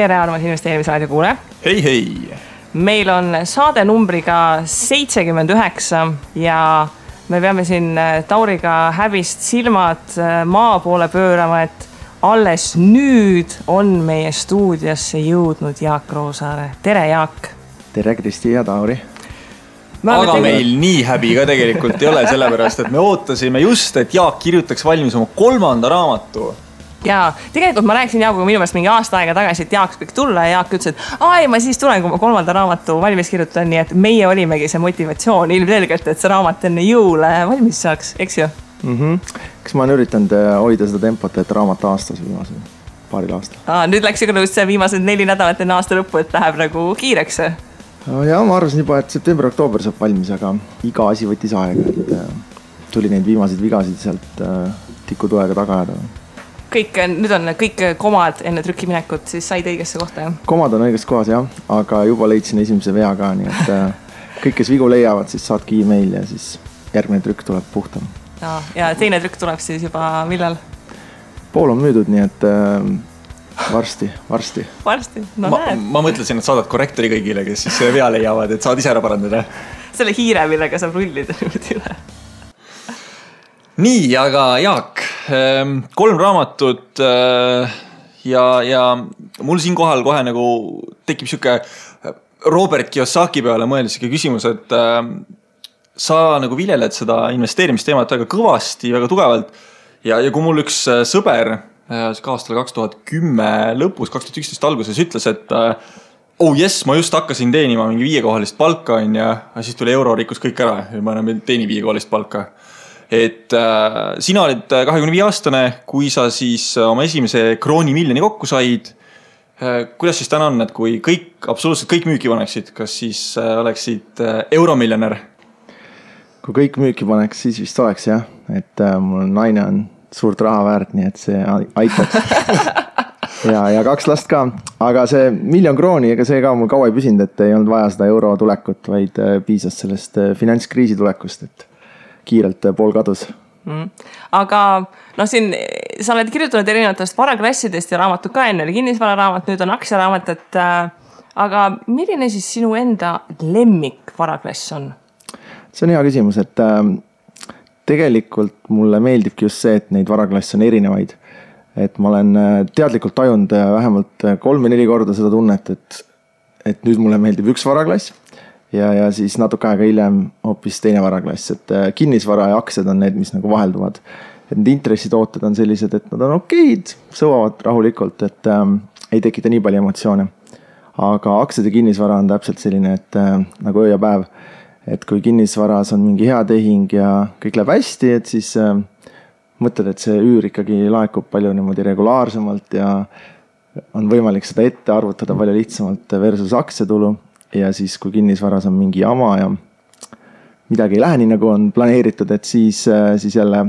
tere, armas investeerimisraadio kuule. Hei. Meil on saade numbriga 79 ja me peame siin Tauriga häbist silmad maa poole pöörama, et alles nüüd on meie stuudiosse jõudnud Jaak Roosaare. Tere, Jaak! Tere, Kristi ja Tauri! Aga meil nii häbi ka tegelikult ei ole, sellepärast, et me ootasime just, et Jaak kirjutaks valmis oma 3. raamatu. Ja tegelikult ma rääkisin Jaakuga minu meelest mingi aasta aega tagasi, et Jaak võiks tulla ja Jaak ütles, et ma siis tulen, kui ma 3. raamatu valmis kirjutan, nii et meie olimegi see motivatsioon ilmselgelt, et see raamat enne jõule valmis saaks, eks ju? Kas ma olen üritanud hoida seda tempot, et raamat aastas viimasel paaril aastal? Nüüd läks ju just see viimased 4 nädalat enne aasta lõppu, et läheb nagu kiireks. Ja ma arvasin juba, et september-oktoober saab valmis, aga iga asi võttis aega, et tuli neid viimaseid vigasid sealt tikutoega tagajada. Nüüd on kõik komad enne trükkiminekut, siis said õigesse kohta, jah? Komad on õiges kohas, jah, aga juba leidsin esimese vea ka, nii et kõik, kes vigu leiavad, siis saadki e-mail ja siis järgmine trükk tuleb puhtam. Ja teine trükk tuleb siis juba millal? Pool on müüdud, nii et varsti. No näed. Ma mõtlesin, et saadad korrektori kõigile, kes siis vea leiavad, et saad ise ära parandada. Selle hiire, millega saab rullida üle. Nii, aga Jaak, 3 raamatut ja mul siin kohal kohe nagu tekib siuke Robert Kiyosaki peale mõeldes siuke küsimus, et sa nagu viljeled seda investeerimisteemat väga kõvasti, väga tugevalt ja kui mul üks sõber aastal 2010 lõpus, 2011 alguses ütles, et ma just hakkasin teenima mingi 5-kohalist palka ja siis tuli euro rikkus kõik ära ja ma enam teeni 5-kohalist palka. Et sina olid 25-aastane, kui sa siis oma esimese kroonimiljoni kokku said. Kuidas siis täna on, et kui absoluutselt kõik müüki paneksid, kas siis oleksid euromiljonär? Kui kõik müüki paneks, siis vist oleks jah, et mul naine on suurt raha väärt, nii et see aitaks. ja 2 last ka, aga see 1 000 000 krooni, ega see ka mul kaua ei püsinud, et ei olnud vaja seda euro tulekut, vaid piisas sellest finantskriisi tulekust, et kiirelt pool kadus. Aga siin sa oled kirjutanud erinevatest varaklassidest ja raamatud ka enne oli kinnisvararaamat, nüüd on aktsiaraamat, et aga milline siis sinu enda lemmik varaklass on? See on hea küsimus, et tegelikult mulle meeldibki just see, et neid varaklasse on erinevaid. Et ma olen teadlikult tajunud vähemalt 3 või 4 korda seda tunnet, et nüüd mulle meeldib üks varaklass ja siis natuke aega hiljem hoopis teine varaklass, et kinnisvara ja aktsiad on need, mis nagu vahelduvad. Et need intressitooted on sellised, et nad on okeid, sõvavad rahulikult, et ei tekita nii palju emotsioone. Aga aktsiad ja kinnisvara on täpselt selline, et nagu öö ja päev, et kui kinnisvaras on mingi hea tehing ja kõik läheb hästi, et siis mõtled, et see üür ikkagi laekub palju niimoodi regulaarsemalt ja on võimalik seda ette arvutada palju lihtsamalt versus aktsiatulu. Ja siis, kui kinnisvaras on mingi jama ja midagi ei lähe nii, nagu on planeeritud, et siis jälle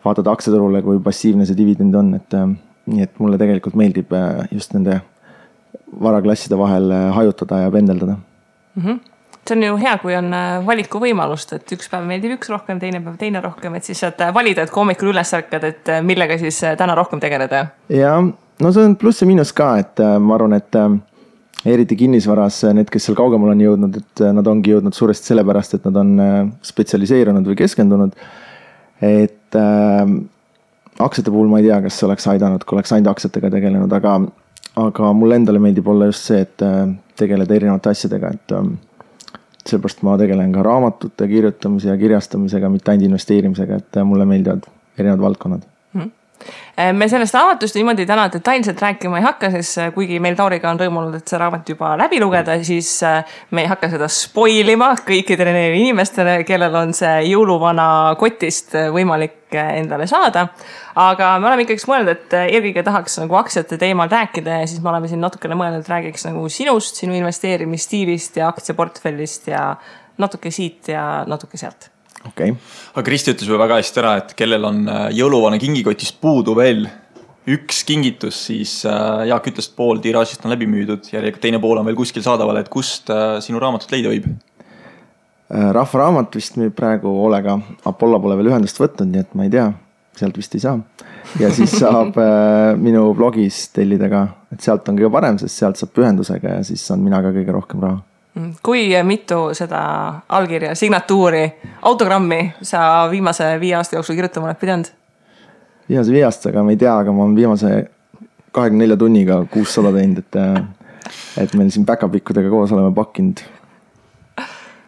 vaatad aktsiaturule, kui passiivne see dividend on. Nii et mulle tegelikult meeldib just nende varaklasside vahel hajutada ja pendeldada. See on ju hea, kui on valiku võimalust, et üks päev meeldib üks rohkem, teine päev teine rohkem, et siis saad valida, et kui hommikul üles ärkad, et millega siis täna rohkem tegeleda. Ja, no see on pluss ja miinus ka, et ma arvan, et eriti kinnisvaras need, kes seal kaugemal on jõudnud, et nad ongi jõudnud suuresti sellepärast, et nad on spetsialiseerunud või keskendunud. Et aktsiate puhul ma ei tea, kas oleks aidanud, kui oleks ainult aktsiatega tegelenud, aga mulle endale meeldib olla just see, et tegeleda erinevate asjadega, et sellepärast ma tegelen ka raamatute kirjutamise ja kirjastamisega, mitte ainult investeerimisega, et mulle meeldivad erinevad valdkonnad. Me sellest raamatust niimoodi täna detailselt rääkima ei hakka, sest kuigi meil Tauriga on rõõmunud, et see raamat juba läbi lugeda, siis me ei hakka seda spoilima kõikidele inimestele, kellel on see jõuluvana kotist võimalik endale saada. Aga me oleme ikkagi mõelnud, et eelkõige tahaks nagu aktsiate teemal rääkida ja siis me oleme siin natukene mõelnud, et räägiks nagu sinust, sinu investeerimisstiilist ja aktsiaportfellist ja natuke siit ja natuke sealt. Okay. Aga Kristi ütles väga hästi ära, et kellel on jõuluvana kingikotist puudu veel üks kingitus, siis Jaak ütles, et pool tiraažist on läbi müüdud ja teine pool on veel kuskil saadaval, et kust sinu raamatut leida võib? Rahva raamat vist müüb praegu Olega. Apollo pole veel ühendust võtnud, nii et ma ei tea. sealt vist ei saa. Ja siis saab minu blogis tellida ka, et sealt on kõige parem, sest sealt saab pühendusega ja siis saan mina ka kõige rohkem raha. Kui mitu seda allkirja, signatuuri, autogrammi sa viimase 5 aasta jooksul kirjutama oled pidanud? Viimase 5 aastaga ma ei tea, aga ma olen viimase 24 tunniga 600 teinud, et meil siin back-up-ikkudega koos oleme pakkinud.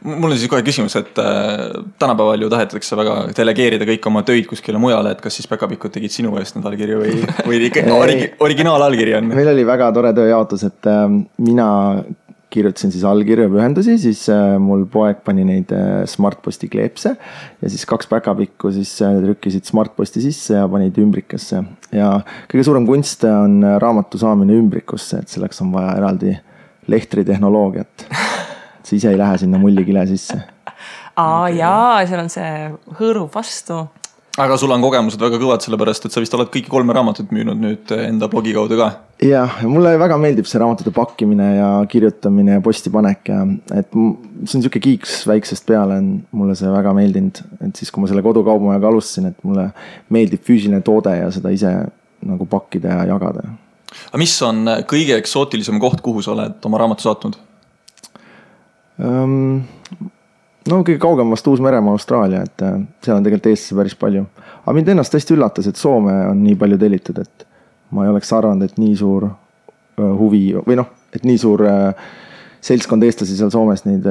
Mul on siis kohe küsimus, et tänapäeval ju tahetakse väga delegeerida kõik oma töid kuskile mujale, et kas siis back-up-ikud tegid sinu eest need allkirju või originaal-allkiri on? Meil oli väga tore tööjaotus, et mina kirjutasin siis allkirju pühendusi, siis mul poeg pani neid Smartposti kleepse ja siis 2 back-up-ikku siis trükkisid Smartposti sisse ja panid ümbrikasse. Ja kõige suurem kunst on raamatu saamine ümbrikusse, et selleks on vaja eraldi lehtritehnoloogiat. See ise ei lähe sinna mullikile sisse. Jaa, seal on see hõõrub vastu. Aga sul on kogemused väga kõvad, sellepärast, et sa vist oled kõiki 3 raamatut müünud nüüd enda blogi kaudu ka. Jah, mulle väga meeldib see raamatute pakkimine ja kirjutamine ja postipanek ja et see on siuke kiiks väiksest peale, on mulle see väga meeldinud, et siis kui ma selle kodukaubamajaga alustasin, et mulle meeldib füüsiline toode ja seda ise nagu pakkida ja jagada. Aga mis on kõige eksootilisem koht, kuhu sa oled oma raamatu saatnud? No kõige kaugem vast Uus-Meremaa, Austraalia, et seal on tegelikult Eestisse päris palju. Aga mind ennast tõesti üllatas, et Soome on nii palju tellitud, et ma ei oleks arvanud, et nii suur huvi või noh, et nii suur seltskond eestlasi seal Soomes neid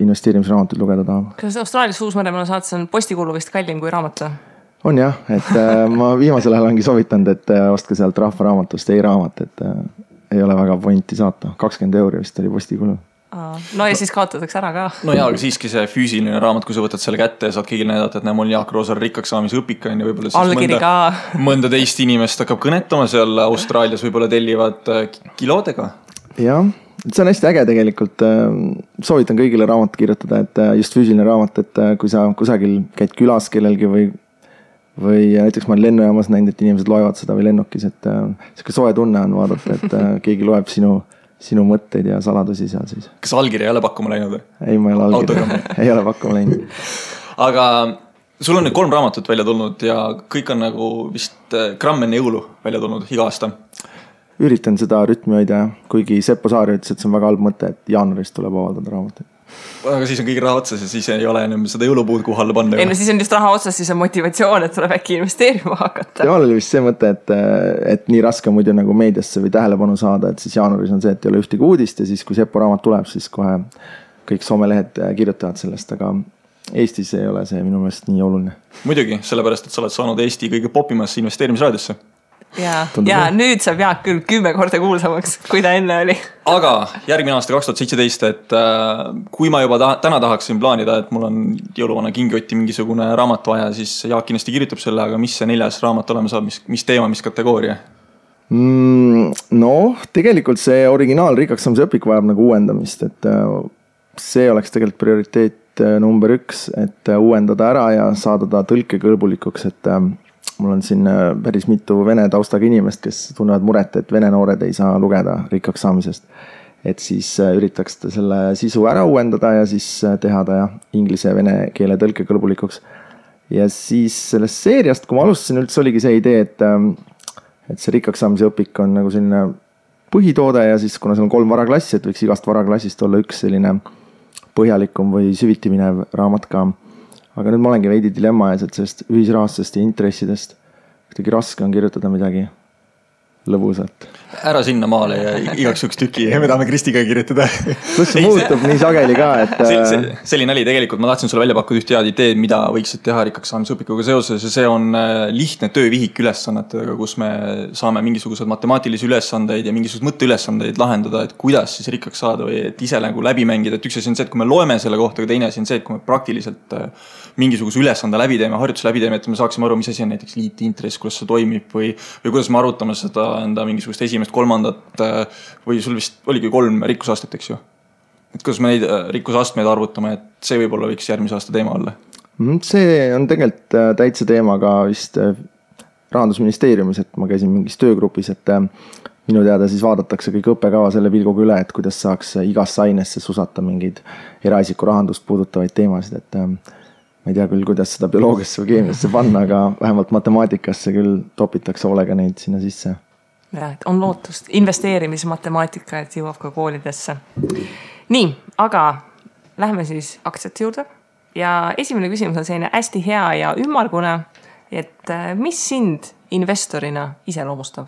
investeerimisraamatuid lugeda tahab. Kas Austraalias Uus-Meremaa saates on postikulu vist kallim kui raamat? On jah, et ma viimasel ajal ongi soovitanud, et ostke sealt rahvaraamatust e-raamat, et ei ole väga pointi saata. 20 € vist oli postikulu. No ja siis kaotatakse ära ka. No jaa, aga siiski see füüsiline raamat, kui sa võtad selle kätte ja saad kõigile näidata, et mul Jaak Roosaar rikkaks saamise õpik on ja võib-olla siis mõnda teist inimest hakkab kõnetama seal Austraalias, võib-olla tellivad kilodega. Jah, see on hästi äge tegelikult. Soovitan kõigile raamat kirjutada, et just füüsiline raamat, et kui sa kusagil käid külas kellelgi või näiteks ma olen lennujaamas näinud, et inimesed loevad seda või lennukis, et selline soe tunne on vaadata, et keegi loeb sinu mõtteid ja saladusi seal siis. Kas allkiri ei ole pakkuma läinud? Ei, ma ei ole pakkuma läinud. Aga sul on nüüd 3 raamatut välja tulnud ja kõik on nagu vist gramm enne jõulu välja tulnud iga aasta. Üritan seda rütmi hoida, kuigi Seppo Saari ütles, et see on väga halb mõte, et jaanuarist tuleb avaldada raamatuid. Aga siis on kõige raha otsas ja siis ei ole enam seda jõulupuud kuhu alla panna. Ei, no siis on just raha otsas, siis on motivatsioon, et tuleb äkki investeerima hakata. Temal oli vist see mõte, et nii raske muidu nagu meediasse või tähelepanu saada, et siis jaanuaris on see, et ei ole ühtegi uudist ja siis kui Seppo raamat tuleb, siis kohe kõik somelehed kirjutavad sellest, aga Eestis ei ole see minu meelest nii oluline. Muidugi, sellepärast, et sa oled saanud Eesti kõige popimasse investeerimisraadiosse. Ja nüüd saab Jaak küll 10 korda kuulsamaks, kui ta enne oli. Aga järgmine aasta 2017, et kui ma juba täna tahaksin plaanida, et mul on jõuluvana kingioti mingisugune raamat vaja, siis Jaak kindlasti kirjutab selle, aga mis see 4. raamat olema saab, mis teema, mis kategooria? No, tegelikult see originaal rikkaks saamise õpik vajab nagu uuendamist, et see oleks tegelikult prioriteet number 1, et uuendada ära ja saada ta tõlkekõlbulikuks, et mul on siin päris mitu vene taustaga inimest, kes tunnevad muret, et vene noored ei saa lugeda rikkaks saamisest. Et siis üritaks selle sisu ära uuendada ja siis teha ta inglise ja vene keele tõlkekõlbulikuks. Ja siis sellest seeriast, kui ma alustasin, üldse oligi see idee, et see rikkaks saamise õpik on nagu selline põhitoode ja siis kuna seal on 3 varaklassi, et võiks igast varaklassist olla üks selline põhjalikum või süviti minev raamat ka. Aga nüüd ma olengi veidi dilemma ees, et sellest ühisrahastusest ja intressidest kuidagi raske on kirjutada midagi lõbusalt. Ära sinna maale ja igaks üks tüki, me tahame Kristiga kirjutada. Kus see muutub nii sageli ka, et... Selline oli tegelikult, ma tahtsin sulle välja pakkuda üht head ideed, mida võiksid teha rikkaks saamisõpikuga seoses ja see on lihtne töövihik ülesannetega, kus me saame mingisugused matemaatilisi ülesandeid ja mingisugused mõtteülesandeid lahendada, et kuidas siis rikkaks saada või et ise nagu läbi mängida, et üks asi on see, et kui me loeme selle kohta, aga teine asi on see, et kui me praktiliselt mingisuguse ülesande läbi teeme, harjutuse läbi teeme, et me saaksime aru, mis asi on näiteks liitintress, kuidas see toimib või kuidas me arutame seda enda mingisugust esimest, kolmandat või sul vist oligi 3 rikkusastet, eks ju? Et kuidas me neid rikkusastmeid arvutame, et see võib-olla võiks järgmise aasta teema olla? See on tegelikult täitsa teema ka vist Rahandusministeeriumis, et ma käisin mingis töögrupis, et minu teada siis vaadatakse kõik õppekava selle pilguga üle, et kuidas saaks igasse ainesse susata mingeid eraisiku rahandust puudutavaid teemasid, et ma ei tea küll, kuidas seda bioloogiasse või keemiasse panna, aga vähemalt matemaatikasse küll topitakse hoolega neid sinna sisse. Ja, on lootust. Investeerimismatemaatika, et jõuab ka koolidesse. Nii, aga lähme siis aktsiate juurde. Ja esimene küsimus on selline hästi hea ja ümmargune, et mis sind investorina iseloomustab?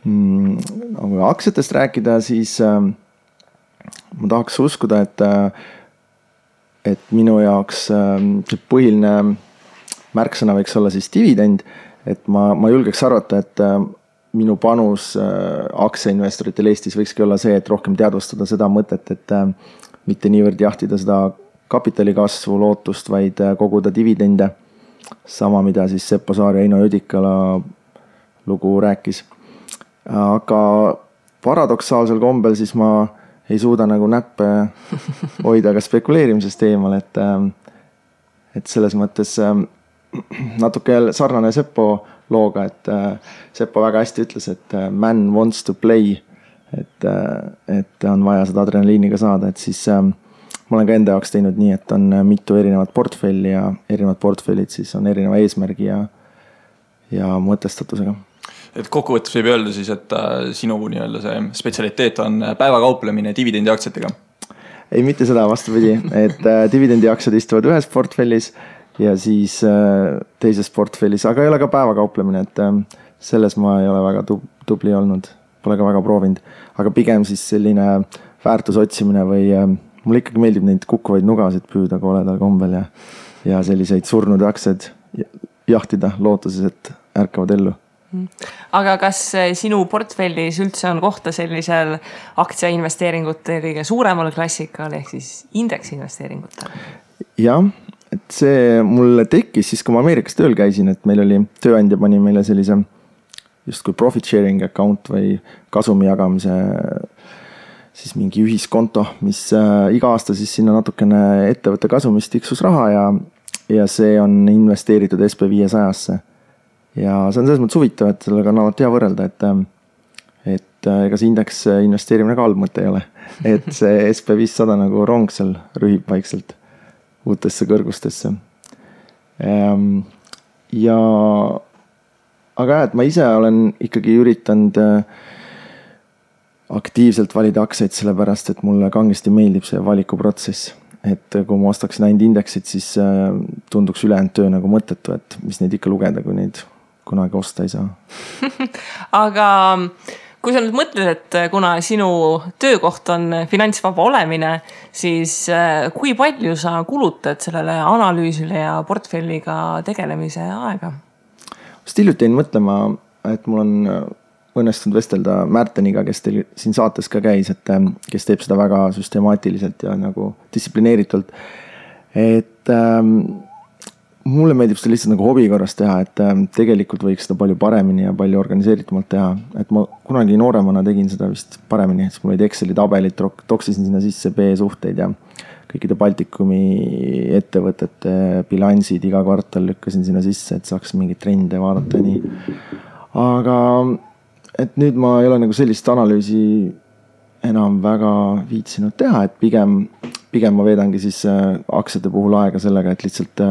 Kui aktsiatest rääkida, siis ma tahaks uskuda, et minu jaoks see põhiline märksõna võiks olla siis dividend, et ma julgeks arvata, et minu panus aktsiainvestoritel Eestis võikski olla see, et rohkem teadvustada seda mõtet, et mitte niivõrd jahtida seda kapitali kasvu lootust, vaid koguda dividende. Sama, mida siis Seppo Saar ja Eino Jõdikala lugu rääkis. Aga paradoksaalsel kombel siis ma ei suuda nagu näppe hoida ka spekuleerimisest eemal, et selles mõttes natuke sarnane Seppo looga, et Seppo väga hästi ütles, et man wants to play, et on vaja seda adrenaliiniga saada, et siis ma olen ka enda jaoks teinud nii, et on mitu erinevat portfelli ja erinevad portfellid siis on erineva eesmärgi ja mõtestatusega. Et kokkuvõttes võib öelda siis, et sinu nii-öelda see spetsialiteet on päevakauplemine dividendiaktsiatega? Ei, mitte seda, vastupidi, et dividendiaktsiad istuvad ühes portfellis ja siis teises portfellis, aga ei ole ka päevakauplemine, et selles ma ei ole väga tubli olnud, pole ka väga proovinud, aga pigem siis selline väärtusotsimine või mulle ikkagi meeldib neid kukkuvaid nugasid püüda koledal kombel ja selliseid surnud aktsiaid jahtida lootuses, et ärkavad ellu. Aga kas sinu portfellis üldse on kohta sellisel aktsiainvesteeringute kõige suuremal klassikal ehk siis indeksinvesteeringutel? Jah, et see mulle tekkis siis, kui ma Ameerikas tööl käisin, et meil oli tööandja pani meile sellise justkui profit sharing account või kasumi jagamise siis mingi ühiskonto, mis iga aasta siis sinna natukene ettevõtte kasumist tiksus raha ja see on investeeritud SP500-sse. Ja see on selles mõttes huvitav, et sellega on alati hea võrrelda, et ega see indeks investeerimine ka halb mõte ei ole. Et see SP500 nagu rong seal rühib vaikselt uutesse kõrgustesse. Ja aga et ma ise olen ikkagi üritanud aktiivselt valida aktsiaid sellepärast, et mulle kangesti meeldib see valikuprotsess. Et kui ma ostaksin ainult indeksid, siis tunduks ülejäänud töö nagu mõttetu, et mis neid ikka lugeda, kui neid kunagi osta ei saa. Aga kui sa nüüd mõtled, et kuna sinu töökoht on finantsvaba olemine, siis kui palju sa kulutad sellele analüüsile ja portfelliga tegelemise aega? Hiljuti jäin mõtlema, et mul on õnnestunud vestelda Märteniga, kes teil siin saates ka käis, et kes teeb seda väga süstemaatiliselt ja nagu distsiplineeritult. Et mulle meeldib seda lihtsalt nagu hobi korras teha, et tegelikult võiks seda palju paremini ja palju organiseeritumalt teha. Et ma kunagi nooremana tegin seda vist paremini, et mul olid Exceli tabelit, toksisin sinna sisse B-suhteid ja kõikide Baltikumi ettevõtete bilansid iga kvartal lükkasin sinna sisse, et saaks mingeid trende vaadata ja nii. Aga et nüüd ma ei ole nagu sellist analüüsi enam väga viitsinud teha, et pigem ma veedangi siis aktsiate puhul aega sellega, et lihtsalt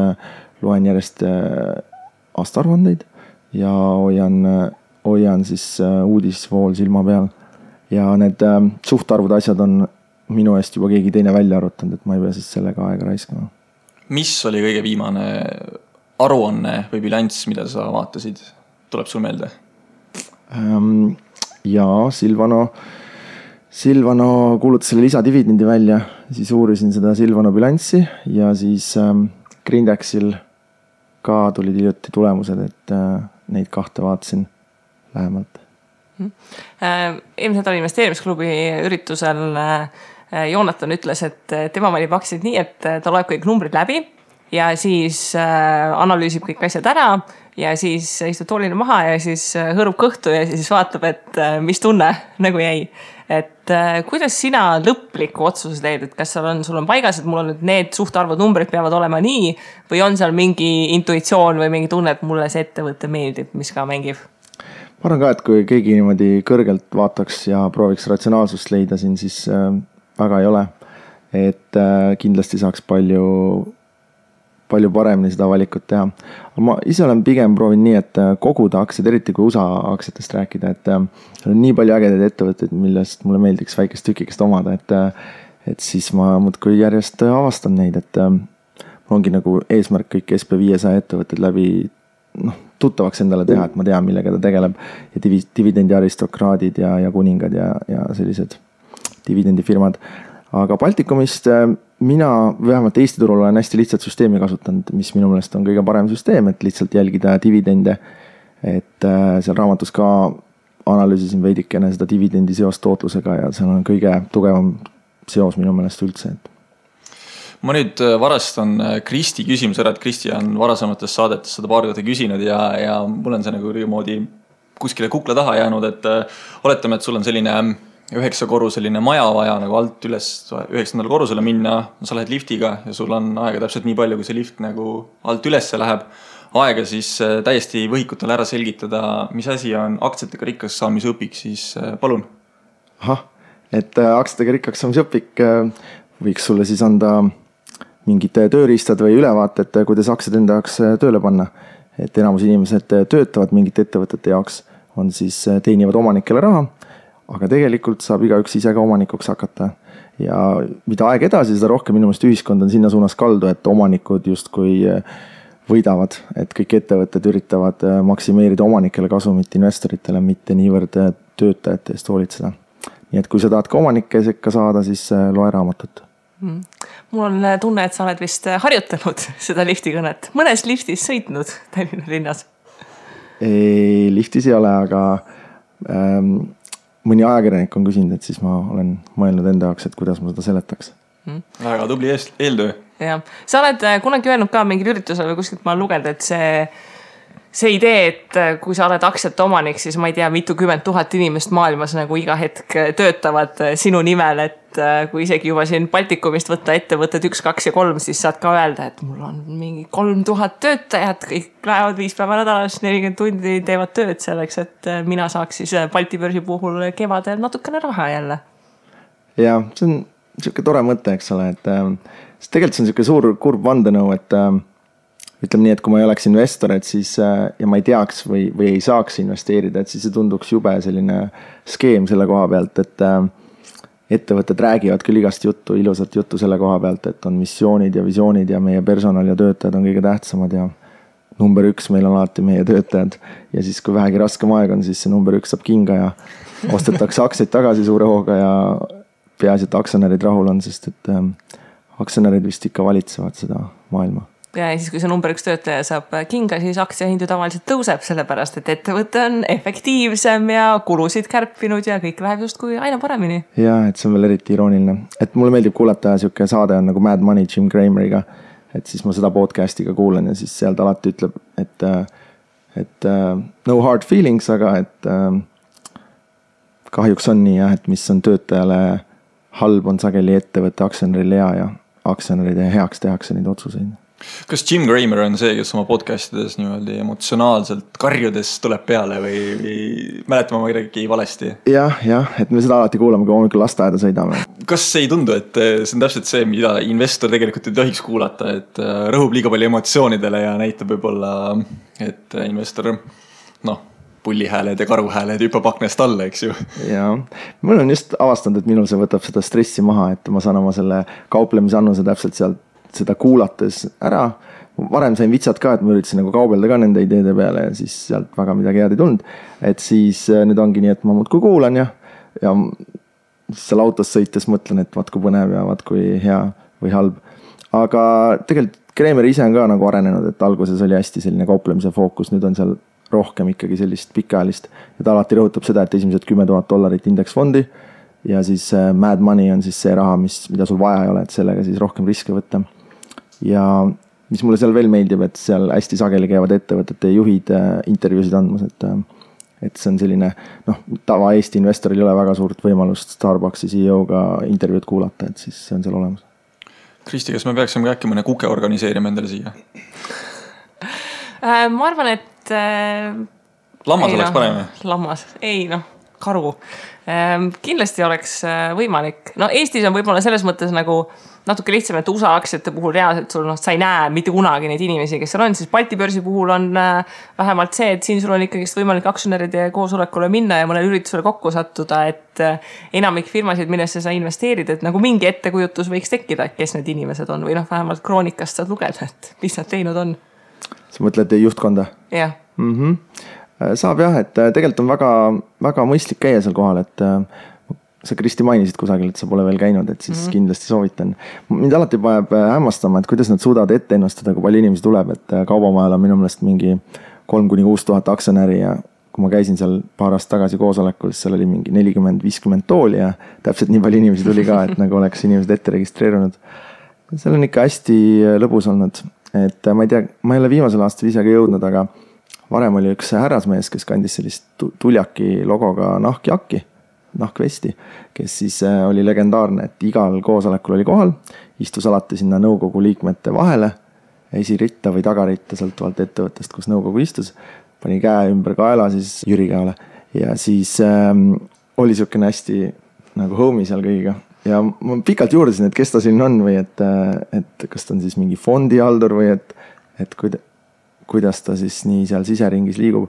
loen järjest aastaaruandeid ja hoian siis uudisvool silma peal. Ja need suhtarvud asjad on minu eest juba keegi teine välja arvutanud, et ma ei pea siis sellega aega raiskama. Mis oli kõige viimane aruanne või bilanss, mida sa vaatasid? Tuleb sul meelde? Ja Silvano kuulutas selle lisadividendi välja, siis uurisin seda Silvano bilanssi ja siis Grindexil ka tulid hiljuti tulemused, et neid kahte vaatasin lähemalt. Eelmised oli investeerimisklubi üritusel Joonatan ütles, et tema valib aktsiaid nii, et ta loeb kõik numbrid läbi ja siis analüüsib kõik asjad ära ja siis istub toolile maha ja siis hõõrub kõhtu ja siis vaatab, et mis tunne nagu jäi. Et kuidas sina lõpliku otsuse teed, et kas sul on paigas, et mul on nüüd need suhtarvud numbrid peavad olema nii või on seal mingi intuitsioon või mingi tunne, et mulle see ettevõte meeldib, mis ka mängib? Ma arvan ka, et kui keegi niimoodi kõrgelt vaataks ja prooviks ratsionaalsust leida siin, siis väga ei ole. Et kindlasti saaks palju palju paremini seda valikut teha. Ma ise olen pigem proovinud nii, et koguda aktsiaid, eriti kui USA aktsiatest rääkida, et on nii palju ägedaid ettevõtteid, millest mulle meeldiks väikest tükikest omada, et siis ma muudkui järjest avastan neid, et ongi nagu eesmärk kõik SP500 ettevõtted läbi tuttavaks endale teha, et ma tean, millega ta tegeleb ja dividendi aristokraadid ja kuningad ja sellised dividendifirmad. Aga Baltikumist mina vähemalt Eesti turul olen hästi lihtsalt süsteemi kasutanud, mis minu meelest on kõige parem süsteem, et lihtsalt jälgida dividende, et seal raamatus ka analüüsisin veidikene seda dividendi seost tootlusega ja seal on kõige tugevam seos minu meelest üldse. Ma nüüd varastan Kristi küsimus ära, et Kristi on varasemates saadetes seda paar korda küsinud ja mul on see nagu moodi kuskile kukla taha jäänud, et oletame, et sul on selline 9-korruseline maja vaja nagu alt üles 9. korrusele minna, sa lähed liftiga ja sul on aega täpselt nii palju, kui see lift nagu alt ülesse läheb. Aega siis täiesti võhikutele ära selgitada, mis asi on aktsiatega rikkaks saamise õpik, siis palun. Et aktsiatega rikkaks saamise õpik võiks sulle siis anda mingid tööriistad või ülevaated, kuidas aktsiad enda jaoks tööle panna. Et enamus inimesed töötavad mingite ettevõtete jaoks, on siis teenivad omanikele raha, aga tegelikult saab igaüks ise ka omanikuks hakata. Ja mida aeg edasi, seda rohkem minu meelest ühiskond on sinna suunas kaldu, et omanikud justkui võidavad, et kõik ettevõtted üritavad maksimeerida omanikele kasumit investoritele, mitte niivõrd töötajate eest hoolitseda. Nii et kui sa tahad ka omanike sekka saada, siis loe raamatut. Mul on tunne, et sa oled vist harjutanud seda liftikõnet. Mõnes liftis sõitnud Tallinna linnas? Ei, liftis ei ole, aga mõni ajakirjanik on küsinud, et siis ma olen mõelnud enda jaoks, et kuidas ma seda seletaks. Väga tubli eeltöö. Ja. Sa oled kunagi öelnud ka mingil üritusel või kuskilt ma lugeda, et see idee, et kui sa oled aktsiate omanik, siis ma ei tea, mitukümmend tuhat inimest maailmas nagu iga hetk töötavad sinu nimel, et kui isegi juba siin Baltikumist võtta ettevõtted 1, 2 ja 3, siis saad ka öelda, et mul on mingi 3000 töötajat, kõik lähevad 5 päeva nädalas, 40 tundi teevad tööd selleks, et mina saaks siis Balti börsi puhul kevadel natukene raha jälle. Ja, see on niisugune tore mõte, eks ole, et tegelikult see on niisugune suur kurb vandenõu, et ütleme nii, et kui ma ei oleks investor, et siis, ja ma ei teaks või ei saaks investeerida, et siis see tunduks jube selline skeem selle koha pealt, et ettevõtted räägivad küll igast juttu, ilusat juttu selle koha pealt, et on missioonid ja visioonid ja meie personal ja töötajad on kõige tähtsamad ja number 1 meil on alati meie töötajad. Ja siis, kui vähegi raskem aeg on, siis see number 1 saab kinga ja ostetakse aktsiaid tagasi suure hooga ja peaasi, et aktsionärid rahul on, sest et aktsionärid vist ikka valitsevad seda maailma. Ja siis, kui see number 1 töötaja saab kinga, siis aktsiahindu tavaliselt tõuseb, sellepärast, et ettevõte on efektiivsem ja kulusid kärpinud ja kõik läheb just kui aina paremini. Ja, et see on veel eriti irooniline. Et mulle meeldib kuulata siuke saade on nagu Mad Money Jim Crameriga, et siis ma seda podcastiga kuulen ja siis sealt alati ütleb, et no hard feelings, aga et kahjuks on nii, et mis on töötajale halb, on sageli ettevõtte aktsionärile hea ja aktsionäride heaks tehakse neid otsuseid. Kas Jim Cramer on see, kes oma podcastides niimoodi emotsionaalselt karjudes tuleb peale või mäletama ma midagi valesti? Jah, et me seda alati kuulame, kui hommikul lasteaeda sõidame. Kas ei tundu, et see on täpselt see, mida investor tegelikult ei tohiks kuulata, et rõhub liiga palju emotsioonidele ja näitab võib-olla, et investor, pullihääled ja karuhääled hüppab aknast alla, eks ju? Ja, mul on just avastanud, et minul see võtab seda stressi maha, et ma saan oma selle kauplemisannuse täpselt sealt seda kuulates ära. Varem sain vitsad ka, et ma üritasin nagu kaubelda ka nende ideede peale ja siis sealt väga midagi head ei tulnud. Et siis nüüd ongi nii, et ma muudkui kuulan ja seal autos sõites mõtlen, et vaat kui põnev ja vaat kui hea või halb. Aga tegelikult Kreemer ise on ka nagu arenenud, et alguses oli hästi selline kauplemise fookus, nüüd on seal rohkem ikkagi sellist pikaajalist. Ja ta alati rõhutab seda, et esimesed $10,000 indeksfondi ja siis Mad Money on siis see raha, mida sul vaja ei ole, et sellega siis rohkem riske võtta. Ja mis mulle seal veel meeldib, et seal hästi sageli käivad ettevõtete juhid intervjuusid andmas, et see on selline, tava Eesti investoril ei ole väga suurt võimalust Starbucksi CEO-ga intervjuud kuulata, et siis see on seal olemas. Kristi, kas me peaksime äkki mõne kuke organiseerima endale siia? Ma arvan, et lammas oleks parem? Lammas, karu. Kindlasti oleks võimalik. No Eestis on võib-olla selles mõttes nagu natuke lihtsam, et USA aktsiate puhul reaalselt sul sa ei näe mitte kunagi neid inimesi, kes seal on, siis Balti börsi puhul on vähemalt see, et siin sul on ikkagi võimalik aktsionäride koosolekule minna ja mõnel üritusele kokku sattuda, et enamik firmasid, millesse sa investeerid, et nagu mingi ettekujutus võiks tekkida, kes need inimesed on või vähemalt kroonikast saad lugeda, et mis nad teinud on. Sa mõtled juhtkonda? Jah. Saab jah, et tegelikult on väga, väga mõistlik käia seal kohal, et sa Kristi mainisid kusagil, et sa pole veel käinud, et siis kindlasti soovitan. Mind alati paneb hämmastama, et kuidas nad suudavad ette ennustada, kui palju inimesi tuleb, et kaubamajal on minu meelest mingi 3-6 tuhat aktsionäri ja kui ma käisin seal paar aastat tagasi koosolekul, siis seal oli mingi 40-50 tooli ja täpselt nii palju inimesi tuli ka, et nagu oleks inimesed ette registreerunud. Seal on ikka hästi lõbus olnud, et ma ei tea, ma ei ole viimasel aastal ise ka jõudnud, aga varem oli üks härrasmees, kes kandis sellist tuljaki logoga nahkvesti, kes siis oli legendaarne, et igal koosolekul oli kohal, istus alati sinna nõukogu liikmete vahele, esiritta või tagaritta, sõltuvalt ettevõttest, kus nõukogu istus, pani käe ümber kaela siis Jüri käele ja siis oli siukene hästi nagu homie seal kõigiga. Ja ma pikalt juurdasin, et kes ta siin on või et kas ta on siis mingi fondihaldur või et kuidas ta siis nii seal siseringis liigub.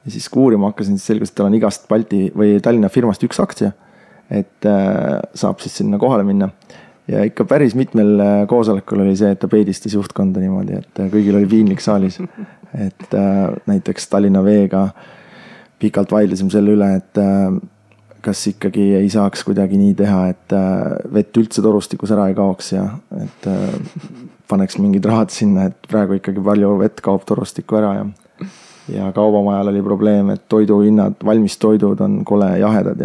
Ja siis uurima hakkasin, siis selgus, et tal on igast Balti või Tallinna firmast üks aktsia, et saab siis sinna kohale minna. Ja ikka päris mitmel koosolekul oli see, et ta peedistas juhtkonda niimoodi, et kõigil oli piinlik saalis. Et näiteks Tallinna Veega pikalt vaidlesime selle üle, et kas ikkagi ei saaks kuidagi nii teha, et vett üldse torustikus ära ei kaoks ja et paneks mingid rahad sinna, et praegu ikkagi palju vett kaob torustikku ära ja kaubamajal oli probleem, et toiduhinnad, valmis toidud on kole jahedad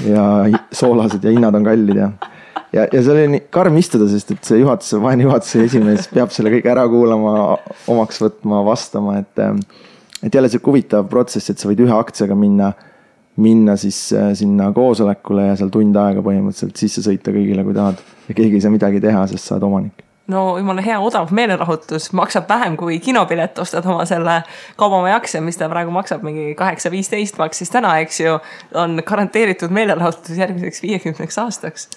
ja soolased ja hinnad on kallid ja see oli nii karm istuda, sest et see vaene juhatuse esimees peab selle kõik ära kuulama, omaks võtma, vastama, et jälle see huvitav protsess, et sa võid ühe aktsiaga minna siis sinna koosolekule ja seal tund aega põhimõtteliselt sisse sõita kõigile, kui tahad ja keegi ei saa midagi teha, sest sa oled omanik. No jumala hea odav meelerahutus, maksab vähem kui kinopilet, ostad oma selle kaubamaja aktsia, mis ta praegu maksab mingi 8-15 maksis täna, eks ju, on garanteeritud meelerahutus järgmiseks 50 aastaks.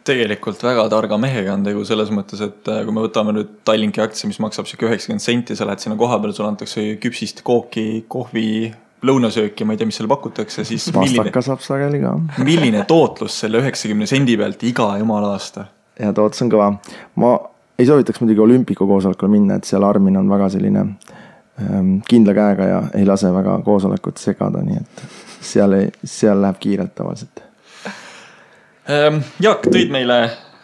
Tegelikult väga targa mehega on tegu selles mõttes, et kui me võtame nüüd Tallinki aktsia, mis maksab 90 senti, sa lähed sinna koha peal, sul antakse küpsist kooki, kohvi, lõunasööki, ma ei tea, mis selle pakutakse, siis pastaka saab sageli ka. Milline tootlus selle 90 sendi pealt iga jumala aasta? Ja tootlus on kõva. Ma ei soovitaks muidugi olümpiku koosolekule minna, et seal Armin on väga selline kindla käega ja ei lase väga koosolekut segada, nii et seal läheb kiirelt tavaliselt. Jaak, tõid meile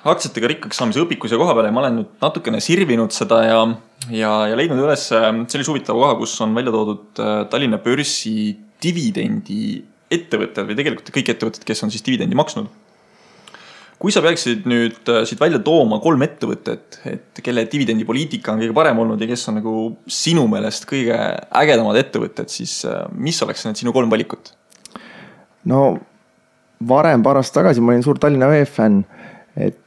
aktsiatega rikkaks saamise õpikus ja koha peale ja ma olen nüüd natukene sirvinud seda ja leidnud üles sellise huvitava koha, kus on välja toodud Tallinna börsi dividendi ettevõtted või tegelikult kõik ettevõtted, kes on siis dividendi maksnud. Kui sa peaksid nüüd siit välja tooma 3 ettevõtet, et kelle dividendipoliitika on kõige parem olnud ja kes on nagu sinu meelest kõige ägedamad ettevõtted, siis mis oleks need sinu 3 valikut? No varem paar aastat tagasi ma olin suur Tallinna Vee fänn, et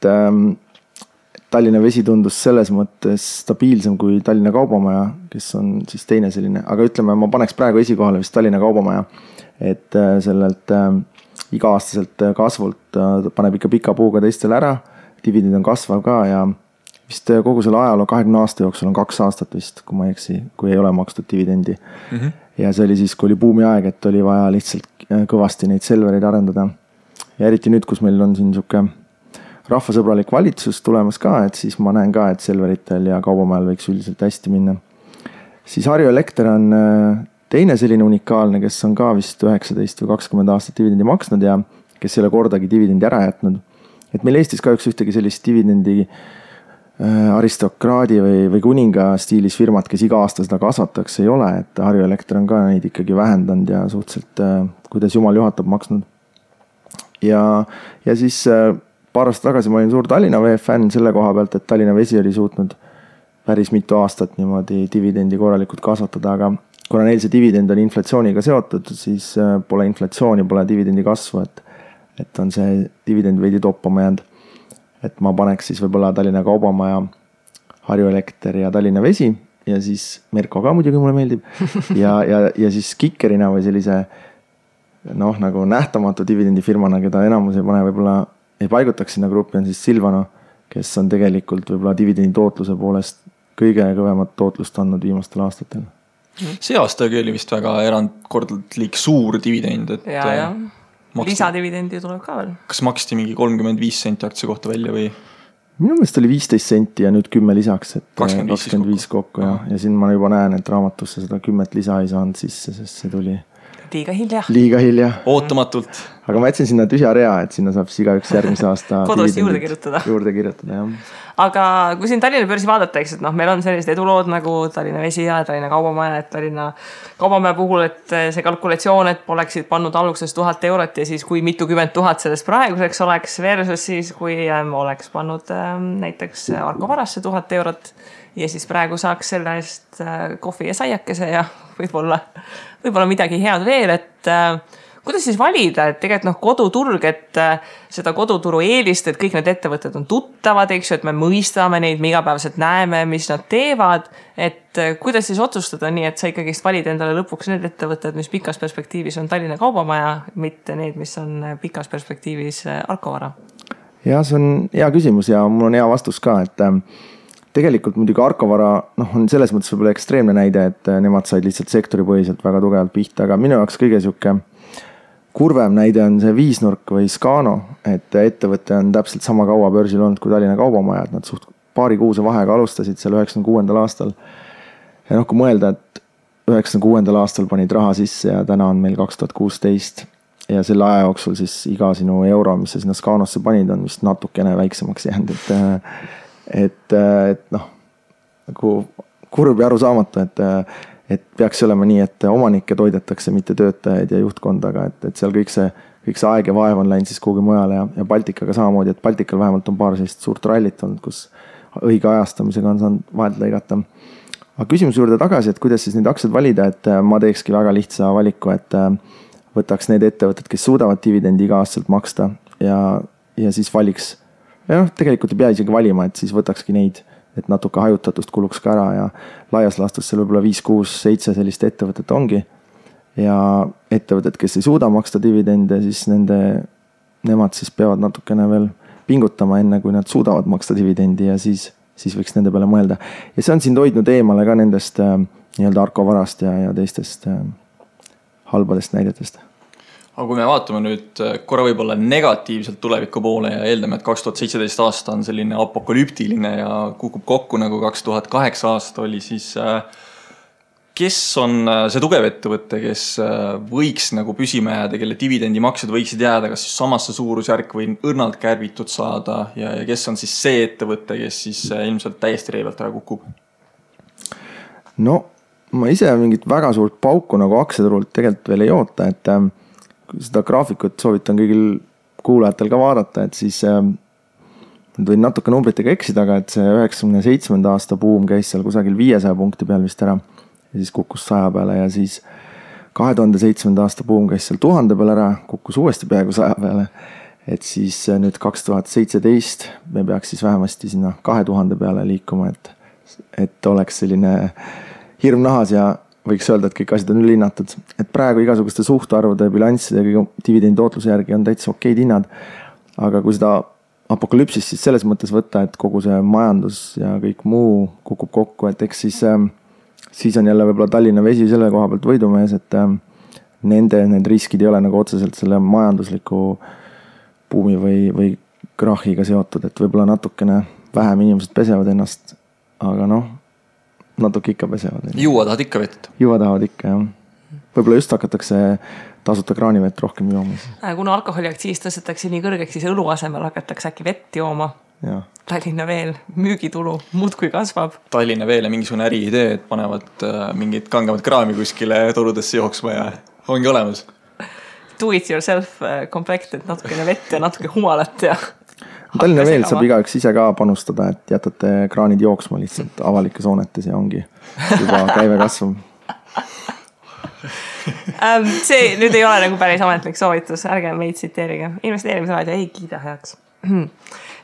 Tallinna Vesi tundus selles mõttes stabiilsem kui Tallinna Kaubamaja, kes on siis teine selline, aga ütleme, ma paneks praegu esikohale vist Tallinna Kaubamaja, et sellelt iga-aastaselt kasvult paneb ikka pika puuga teistele ära, dividend on kasvav ka ja vist kogu selle ajaloo 20 aasta jooksul on 2 aastat vist, kui ma ei eksi, kui ei ole makstud dividendi. Ja see oli siis, kui oli buumi aeg, et oli vaja lihtsalt kõvasti neid Selvereid arendada. Ja eriti nüüd, kus meil on siin siuke rahvasõbralik valitsus tulemas ka, et siis ma näen ka, et Selveritel ja Kaubamajal võiks üldiselt hästi minna. Siis Harju Elekter on teine selline unikaalne, kes on ka vist 19 või 20 aastat dividendi maksnud ja kes ei ole kordagi dividendi ära jätnud. Et meil Eestis kahjuks ühtegi sellist dividendi aristokraadi või kuninga stiilis firmat, kes iga aasta seda kasvataks, ei ole. Et Harju Elekter on ka neid ikkagi vähendanud ja suhteliselt, kuidas jumal juhatab, maksnud. Ja siis paar aastat tagasi ma olin suur Tallinna Vee fänn selle koha pealt, et Tallinna Vesi oli suutnud päris mitu aastat niimoodi dividendi korralikult kasvatada, aga kuna neil see dividend on inflatsiooniga seotud, siis pole inflatsiooni, pole dividendi kasvu, et on see dividend veidi toppama jäänud. Et ma paneks siis võib-olla Tallinna Kaubamaja, Harju Elekter ja Tallinna Vesi ja siis Merko ka muidugi mulle meeldib ja siis kikkerina või sellise noh, nagu nähtamatu dividendifirmana, keda enamus ei pane, võib-olla ei paigutaks sinna gruppi, on siis Silvano, kes on tegelikult võib-olla dividendi tootluse poolest kõige kõvemat tootlust andnud viimastel aastatel. See aastagi oli vist väga erandkordlik suur dividend, et ja. Lisadividendi tuleb ka veel. Kas maksti mingi 35 senti aktsia kohta välja või? Minu meelest oli 15 senti ja nüüd 10 lisaks, et 25 kokku ja siin ma juba näen, et raamatusse seda 10 lisa ei saanud sisse, sest see tuli liiga hilja. Ootamatult. Aga ma jätsin sinna tühja rea, et sinna saab igaüks järgmise aasta kodus juurde kirjutada, jah. Aga kui siin Tallinna börsi vaadata, eks, et noh, meil on sellised edulood nagu Tallinna Vesi ja Tallinna Kaubamaja, et Tallinna Kaubamaja puhul, et see kalkulatsioon, et oleksid pannud alguses 1000 eurot ja siis kui mitukümmend tuhat sellest praeguseks oleks versus siis, kui oleks pannud näiteks Arko Varasse 1000 eurot ja siis praegu saaks selle eest kohvi ja saiakese ja võib-olla midagi head veel, et kuidas siis valida, et tegelikult koduturg, et seda koduturu eelist, et kõik need ettevõtted on tuttavad, eks ju, et me mõistame neid, me igapäevaselt näeme, mis nad teevad, et kuidas siis otsustada nii, et sa ikkagi valid endale lõpuks need ettevõtted, mis pikas perspektiivis on Tallinna Kaubamaja, mitte need, mis on pikas perspektiivis Arko Vara? Ja see on hea küsimus ja mul on hea vastus ka, et tegelikult muidugi Arko Vara on selles mõttes võib-olla ekstreemne näide, et nemad said lihtsalt sektoripõhiselt väga tugevalt pihta, aga minu jaoks kõige siuke kurvem näide on see Viisnurk või Scano, et ettevõte on täpselt sama kaua börsil olnud kui Tallinna Kaubamaja, et nad suht paari kuuse vahega alustasid seal 96. aastal. Ja kui mõelda, et 96. aastal panid raha sisse ja täna on meil 2016 ja selle aja jooksul siis iga sinu euro, mis sa sinna Scanosse panid, on vist natukene väiksemaks jäänud, et nagu kurb ja arusaamatu, et peaks olema nii, et omanikke toidetakse, mitte töötajaid ja juhtkondaga, et seal kõik see aeg ja vaev on läinud siis kuhugi mujale ja Baltikaga samamoodi, et Baltikal vähemalt on paar sellist suurt rallit olnud, kus õige ajastamisega on saanud vahelt lõigata. Aga küsimuse juurde tagasi, et kuidas siis neid aktsiaid valida, et ma teekski väga lihtsa valiku, et võtaks need ettevõtted, kes suudavad dividendi iga-aastaselt maksta ja siis valiks. Ja tegelikult ei pea isegi valima, et siis võtakski neid, et natuke hajutatust kuluks ka ära ja laias laastus seal võib-olla 5, 6, 7 sellist ettevõtet ongi. Ja ettevõtted, kes ei suuda maksta dividende, siis nemad siis peavad natukene veel pingutama enne, kui nad suudavad maksta dividendi ja siis võiks nende peale mõelda. Ja see on siin hoidnud eemale ka nendest nii-öelda Arko Varast ja teistest halbadest näidetest. Aga kui me vaatame nüüd korra võib-olla negatiivselt tuleviku poole ja eeldame, et 2017 aasta on selline apokalüptiline ja kukub kokku nagu 2008 aasta oli, siis kes on see tugev ettevõte, kes võiks nagu püsima jääda, kelle dividendimaksed võiksid jääda kas siis samasse suurusjärk või õrnalt kärbitud saada ja kes on siis see ettevõte, kes siis ilmselt täiesti reivalt ära kukub? No ma ise mingit väga suurt pauku nagu aktsiaturult tegelikult veel ei oota, et seda graafikut soovitan kõigil kuulajatel ka vaadata, et siis võin natuke numbritega eksida, aga et see 97. aasta buum käis seal kusagil 500 punkti peal vist ära ja siis kukkus 100 peale ja siis 2007. aasta buum käis seal 1000 peal ära, kukkus uuesti peaaegu 100 peale, et siis nüüd 2017 me peaks siis vähemasti sinna 2000 peale liikuma, et oleks selline hirm nahas ja võiks öelda, et kõik asjad on ülehinnatud. Et praegu igasuguste suhtarvude, bilansside ja dividendi tootluse järgi on täitsa okeid hinnad. Aga kui seda apokalüpsist siis selles mõttes võtta, et kogu see majandus ja kõik muu kukub kokku, et eks siis on jälle võib-olla Tallinna Vesi selle koha pealt võidumees, et need riskid ei ole nagu otseselt selle majandusliku buumi või krahiga seotud, et võib-olla natukene vähem inimesed pesevad ennast, aga natuke ikka pesevad. Juua tahad ikka vett? Juua tahavad ikka, jah. Võib-olla just hakatakse tasuta kraanivett rohkem jooma. Kuna alkoholiaktsiis tõstetakse nii kõrgeks, siis õlu asemel hakatakse äkki vett jooma. Ja. Tallinna Veel müügitulu muudkui kasvab. Tallinna Veele mingisugune äriidee, et panevad mingid kangemad kraami kuskile torudesse jooksma ja ongi olemas. Do it yourself komplekt, et natukene vett ja natuke humalat ja... Tallinna Veel saab igaüks ise ka panustada, et jätate kraanid jooksma lihtsalt avalikes hoonetes ja ongi juba käive kasvab. See nüüd ei ole nagu päris ametlik soovitus, ärge meid tsiteerige. Investeerimisraadio ei kiida heaks.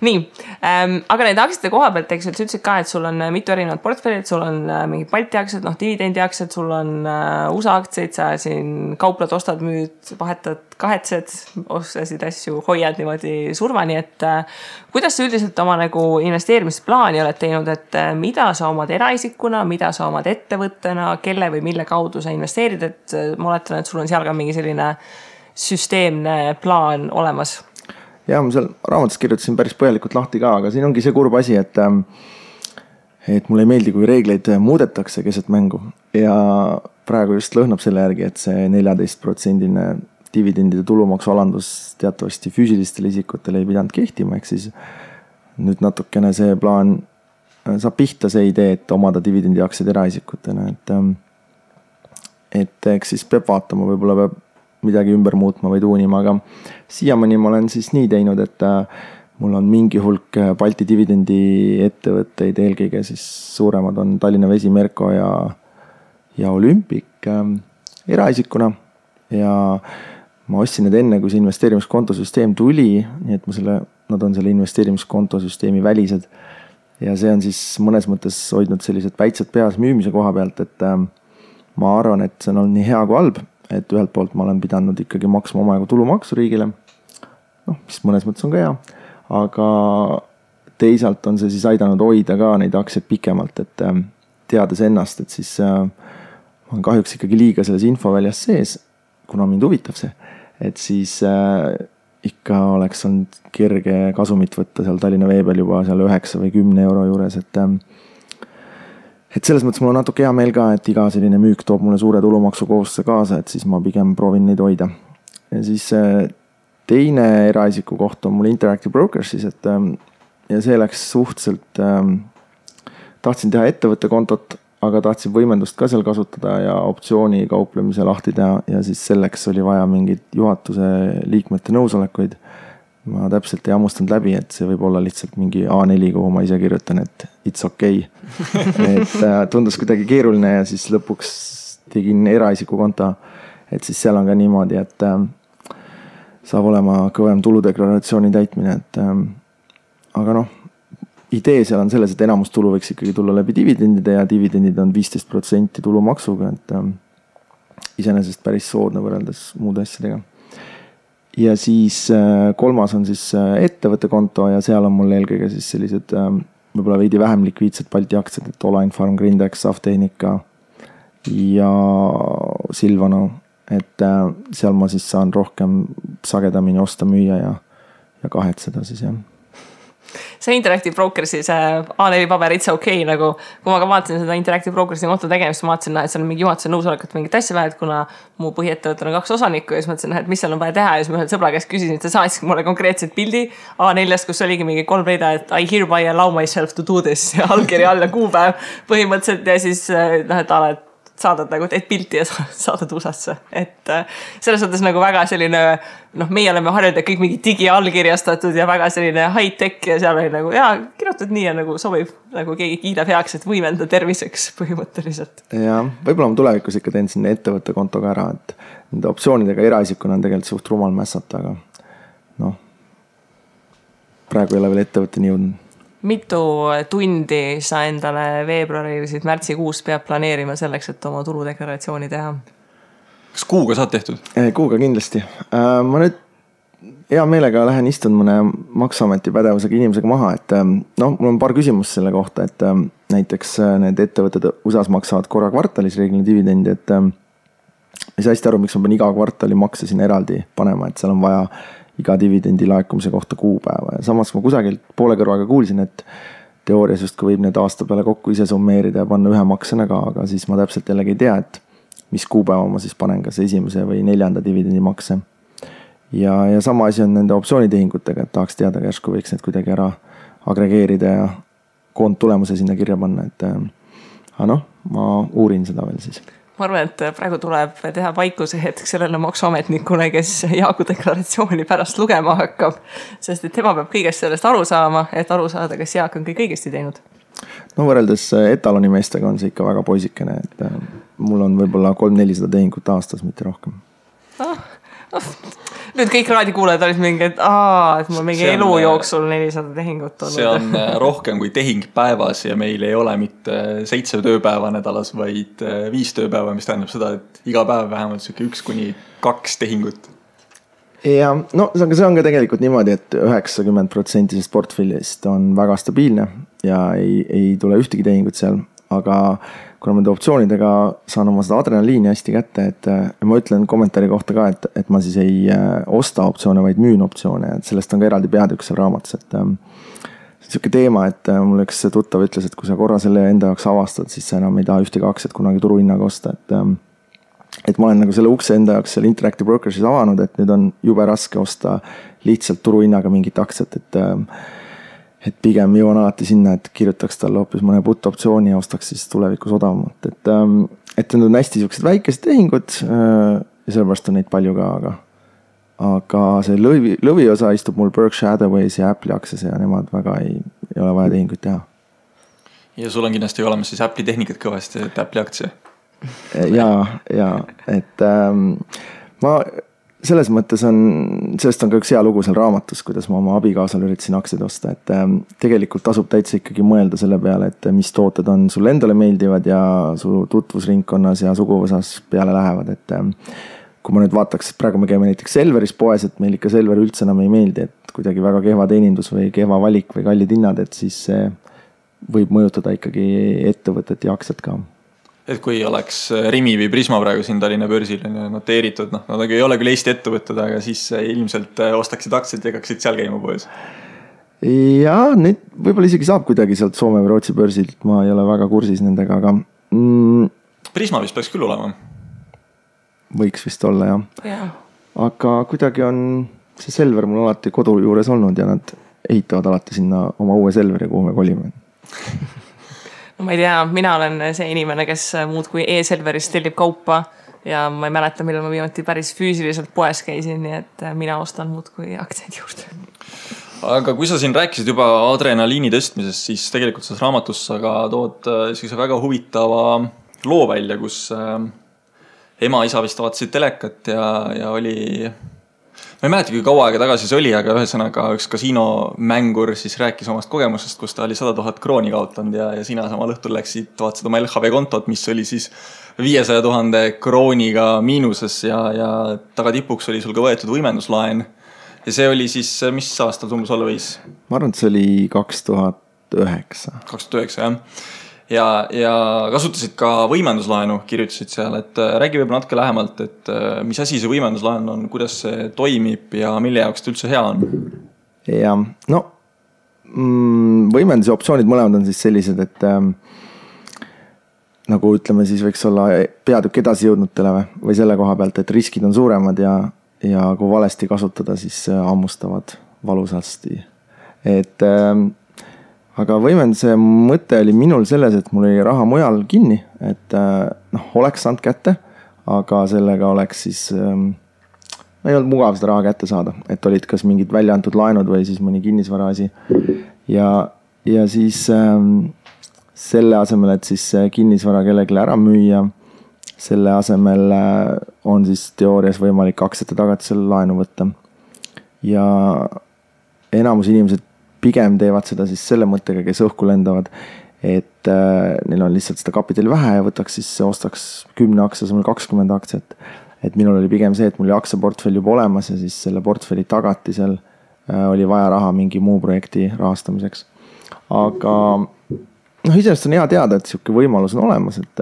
nii, aga need aktsiate koha pealt, eks sa ütlesid ka, et sul on mitu erinevat portfellid, sul on mingid Balti aktsiad, dividendi aktsiad, sul on USA aktsiaid, sa siin kauplad, ostad, müüd, vahetad, kahetsed, ostasid asju, hoiad niimoodi surmani, et kuidas sa üldiselt oma nagu investeerimisplaani oled teinud, et mida sa omad eraisikuna, mida sa omad ettevõttena, kelle või mille kaudu sa investeerid, et ma oletan, et sul on seal ka mingi selline süsteemne plaan olemas? Ja ma seal raamatus kirjutasin päris põhjalikult lahti ka, aga siin ongi see kurb asi, et mulle ei meeldi, kui reegleid muudetakse keset mängu ja praegu just lõhnab selle järgi, et see 14% dividendide tulumaksu alandus teatavasti füüsilistele isikutele ei pidanud kehtima, ehk siis nüüd natukene see plaan saab pihta see idee, et omada dividendi aktsiaid eraisikutena, et eks siis peab vaatama, võib-olla peab midagi ümber muutma või tuunima, aga siiamaani ma olen siis nii teinud, et mul on mingi hulk Balti dividendi ettevõtteid, eelkõige siis suuremad on Tallinna Vesi, Merko ja Olümpik eraisikuna ja ma ostsin need enne, kui see investeerimiskontosüsteem tuli, nii et nad on selle investeerimiskontosüsteemi välised ja see on siis mõnes mõttes hoidnud sellised päitsed peas müümise koha pealt, et ma arvan, et see on olnud nii hea kui halb, et ühelt poolt ma olen pidanud ikkagi maksma omajagu tulumaksu riigile, mis mõnes mõttes on ka hea, aga teisalt on see siis aidanud hoida ka neid aktsiaid pikemalt, et teades ennast, et siis ma olen kahjuks ikkagi liiga selles infoväljas sees, kuna mind huvitab see, et siis ikka oleks olnud kerge kasumit võtta seal Tallinna Vee peal juba seal 9 või 10 euro juures, et selles mõttes mul on natuke hea meel ka, et iga selline müük toob mulle suure tulumaksu kohustuse kaasa, et siis ma pigem proovin neid hoida. Ja siis teine eraisiku koht on mul Interactive Brokers siis, ja see läks suhteliselt, tahtsin teha ettevõtte kontot, aga tahtsin võimendust ka seal kasutada ja optsiooni kauplemise lahti teha ja siis selleks oli vaja mingid juhatuse liikmete nõusolekuid. Ma täpselt ei hammustanud läbi, et see võib olla lihtsalt mingi A4, kuhu ma ise kirjutan, et it's okay. Et tundus kuidagi keeruline ja siis lõpuks tegin eraisiku konto, et siis seal on ka niimoodi, et saab olema kõvem tuludeklaratsiooni täitmine, aga idee seal on selles, et enamus tulu võiks ikkagi tulla läbi dividendide ja dividendid on 15% tulumaksuga, et iseenesest päris soodne võrreldes muude asjadega. Ja siis kolmas on siis ettevõtte konto ja seal on mul eelkõige siis sellised võib-olla veidi vähem likviidsed Balti aktsiad, et Olain Farm, Grindex, Saftehnika ja Silvano, et seal ma siis saan rohkem sagedamini osta, müüa ja kahetseda siis jah. See Interactive Brokersi, see A4 paber, it's okay, nagu kui ma ka vaatasin seda Interactive Brokersi konto tegemist, ma vaatasin, et seal on mingi juhatuse nõusolekut mingit asja vaja, et kuna mu põhiettevõttel on 2 osanikku ja siis mõtlesin, et mis seal on vaja teha ja siis ma ühel sõbra käest küsisin, et ta saatsid mulle konkreetselt pildi A4-st, kus oligi mingi 3 rida, et I hereby allow myself to do this ja allkiri all ja kuupäev põhimõtteliselt ja siis et saadad nagu, teed pilti ja saadad USA-sse. Et selles mõttes nagu väga selline, meie oleme harjunud kõik mingi digiallkirjastatud ja väga selline high-tech ja seal oli nagu, kirjutad nii ja nagu sobib, nagu keegi kiidab heaks, et võimenda terviseks põhimõtteliselt. Ja võib-olla ma tulevikus ikka teen sinna ettevõtte kontoga ära, et nende optsioonidega eraisikuna on tegelikult suht rumal mässata, aga praegu ei ole veel ettevõtteni jõudnud. Mitu tundi sa endale veebruarisid märtsikuus peab planeerima selleks, et oma tuludeklaratsiooni teha? Kas kuuga saad tehtud? Kuuga kindlasti. Ma nüüd hea meelega lähen istun mõne Maksuameti pädevusega inimesega maha, et mul on paar küsimust selle kohta, et näiteks need ettevõtted USA-s maksavad korra kvartalis reeglina dividendi, et ei saa hästi aru, miks ma pean iga kvartali makse sinna eraldi panema, et seal on vaja iga dividendi laekumise kohta kuupäeva ja samas ma kusagilt poole kõrvaga kuulsin, et teoorias just kui võib need aasta peale kokku ise summeerida ja panna ühe maksena ka, aga siis ma täpselt jällegi ei tea, et mis kuupäeva ma siis panen, kas 1. või 4. dividendi makse. Ja sama asi on nende optsioonitehingutega, et tahaks teada, järsku võiks need kuidagi ära agregeerida ja koondtulemuse sinna kirja panna, et ma uurin seda veel siis. Ma arvan, et praegu tuleb teha paikuse hetk sellele maksuametnikule, kes Jaagu deklaratsiooni pärast lugema hakkab, sest et tema peab kõigest sellest aru saama, et aru saada, kas Jaak on kõik õigesti teinud. Võrreldes etaloni meestega on see ikka väga poisikene, et mul on võib-olla 300-400 tehingut aastas, mitte rohkem. Nüüd kõik raadikuulajad olid mingi, et mul mingi elu jooksul 400 tehingut olnud. See on rohkem kui tehing päevas ja meil ei ole mitte 7 tööpäeva nädalas, vaid 5 tööpäeva, mis tähendab seda, et iga päev vähemalt 1 kuni 2 tehingut. Ja no see on ka tegelikult niimoodi, et 90% portfellist on väga stabiilne ja ei tule ühtegi tehingut seal, aga kuna ma optsioonidega saan oma seda adrenaliini hästi kätte, et ma ütlen kommentaari kohta ka, et ma siis ei osta optsioone, vaid müün optsioone, et sellest on ka eraldi peatükk seal raamatus, et see on siuke teema, et mul üks tuttav ütles, et kui sa korra selle enda jaoks avastad, siis sa enam ei taha ühtegi aktsiat kunagi turuhinnaga osta, et ma olen nagu selle ukse enda jaoks seal Interactive Brokersis avanud, et nüüd on jube raske osta lihtsalt turuhinnaga mingit aktsiat, et pigem jõuan alati sinna, et kirjutaks talle hoopis mõne put optsiooni ja ostaks siis tulevikus odavamalt. Et need on hästi siuksed väikesed tehingud ja sellepärast on neid palju ka, aga see lõviosa istub mul Berkshire Hathaway's ja Apple'i aktsias ja nemad väga ei ole vaja tehinguid teha. Ja sul on kindlasti olemas siis Apple'i tehnikat kõvasti, et Apple'i aktsia. Ja, et ma selles mõttes sellest on ka üks hea lugu seal raamatus, kuidas ma oma abikaasal üritasin aktsiaid osta, et tegelikult tasub täitsa ikkagi mõelda selle peale, et mis tooted on sulle endale meeldivad ja su tutvusringkonnas ja suguvõsas peale lähevad, et kui ma nüüd vaataks, et praegu me käime näiteks Selveris poes, et meil ikka Selver üldse enam ei meeldi, et kuidagi väga kehva teenindus või kehva valik või kallid hinnad, et siis see võib mõjutada ikkagi ettevõtet ja aktsiat ka. Et kui oleks Rimi või Prisma praegu siin Tallinna börsil noteeritud, nad ei ole küll Eesti ettevõtted, aga siis ilmselt ostaksid aktsiat ja hakkaksid seal käima poes. Ja nüüd võib-olla isegi saab kuidagi sealt Soome või Rootsi börsilt, ma ei ole väga kursis nendega, aga Prisma vist peaks küll olema. Võiks vist olla, jah. Aga kuidagi on see Selver mul alati kodu juures olnud ja nad ehitavad alati sinna oma uue Selveri, kuhu me kolime. No ma ei tea, mina olen see inimene, kes muud kui e-Selveris tellib kaupa ja ma ei mäleta, millal ma viimati päris füüsiliselt poes käisin, nii et mina ostan muud kui aktsiaid juurde. Aga kui sa siin rääkisid juba adrenaliini tõstmisest, siis tegelikult selles raamatus sa ka tood väga huvitava loo välja, kus ema-isa vist vaatasid telekat ja oli... Ma ei mäleta, kui kaua aega tagasi see oli, aga ühesõnaga üks kasiinomängur siis rääkis omast kogemusest, kus ta oli 100 000 krooni kaotanud ja sina samal õhtul läksid, vaatasid oma LHV kontot, mis oli siis 500 000 krooniga miinuses ja tagatipuks oli sul ka võetud võimenduslaen. Ja see oli siis, mis aastal tumbus olla võis? Ma arvan, et see oli 2009. 2009, jah. Ja kasutasid ka võimenduslaenu, kirjutasid seal, et räägi võib natuke lähemalt, et mis asi see võimenduslaen on, kuidas see toimib ja mille jaoks ta üldse hea on? Ja, no võimenduse optsioonid mõlemad on siis sellised, et nagu ütleme siis võiks olla peatükk edasi jõudnutele või selle koha pealt, et riskid on suuremad ja kui valesti kasutada, siis hammustavad valusasti. Et aga võimenduse mõte oli minul selles, et mul oli raha mujal kinni, et oleks saanud kätte, aga sellega oleks siis, ei olnud mugav seda raha kätte saada, et olid kas mingid välja antud laenud või siis mõni kinnisvara asi. Ja siis selle asemel, et siis kinnisvara kellelegi ära müüa, selle asemel on siis teoorias võimalik aktsiate tagatisel laenu võtta. Ja enamus inimesed pigem teevad seda siis selle mõttega, kes õhku lendavad, et neil on lihtsalt seda kapitali vähe ja võtaks siis, ostaks 10 aktsia, asemel 20 aktsiat. Et minul oli pigem see, et mul oli aktsiaportfell juba olemas ja siis selle portfelli tagatisel oli vaja raha mingi muu projekti rahastamiseks. Aga iseenesest on hea teada, et siuke võimalus on olemas, et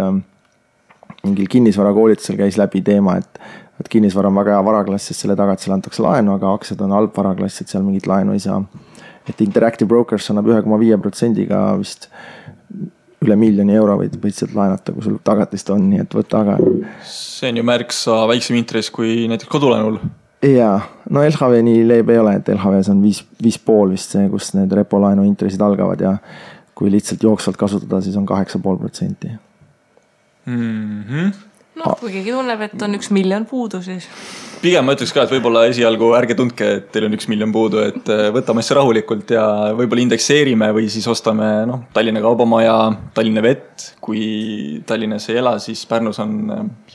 mingil kinnisvarakoolitusel käis läbi teema, et kinnisvara on väga hea varaklass, sest selle tagatisel antakse laenu, aga aktsiad on halb varaklass, et seal mingit laenu ei saa. Et Interactive Brokers annab 1,5%-ga vist üle €1 000 võid sealt laenata, kui sul tagatist on, nii et võtta aga. See on ju märksa väiksem intress kui näiteks kodulaenul. Jaa, no LHV nii leeb ei ole, et LHV on 5,5 vist see, kus need repolaenu intressid algavad ja kui lihtsalt jooksvalt kasutada, siis on 8,5%. No, kui keegi tunneb, et on 1 miljon puudu, siis... Pigem ma ütleks ka, et võib-olla esialgu ärge tundke, et teil on 1 miljon puudu, et võtame asja rahulikult ja võib-olla indekseerime või siis ostame Tallinna Kaubamaja, Tallinna Vett. Kui Tallinnas ei ela, siis Pärnus on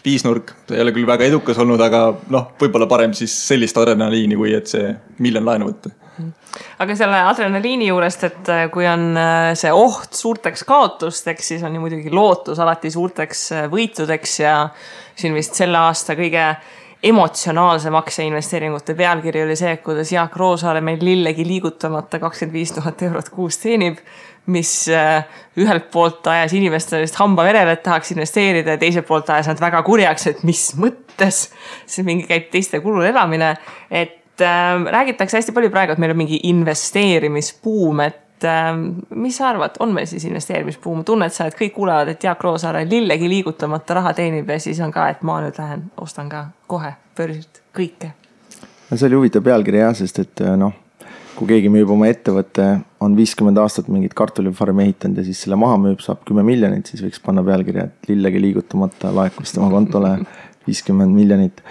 viisnurk. See ei ole küll väga edukas olnud, aga võib-olla parem siis sellist adrenaliini, kui et see 1 miljon laenu võtta. Aga selle adrenaliini juurest, et kui on see oht suurteks kaotusteks, siis on ju muidugi lootus alati suurteks võitudeks ja siin vist selle aasta kõige emotsionaalse makseinvesteeringute pealkiri oli see, kuidas Jaak Roosaare meil lillegi liigutamata 25 000 eurot kuus teenib, mis ühelt poolt ajas inimestele hamba verele, et tahaks investeerida ja teiselt poolt ajas nad väga kurjaks, et mis mõttes see mingi käib teiste kulul elamine, et räägitakse hästi palju praegu, et meil on mingi investeerimisbuum, et mis sa arvad, on meil siis investeerimisbuum? Tunned sa, et kõik kuulevad, et Jaak Roosaare lillegi liigutamata raha teenib ja siis on ka, et ma nüüd lähen, ostan ka kohe börsilt kõike. See oli huvitav pealkiri jah, sest et kui keegi müüb oma ettevõtte, on 50 aastat mingit kartulifarmi ehitanud ja siis selle maha müüb, saab 10 miljonit, siis võiks panna pealkirja, et lillegi liigutamata laekus tema kontole 50 miljonit.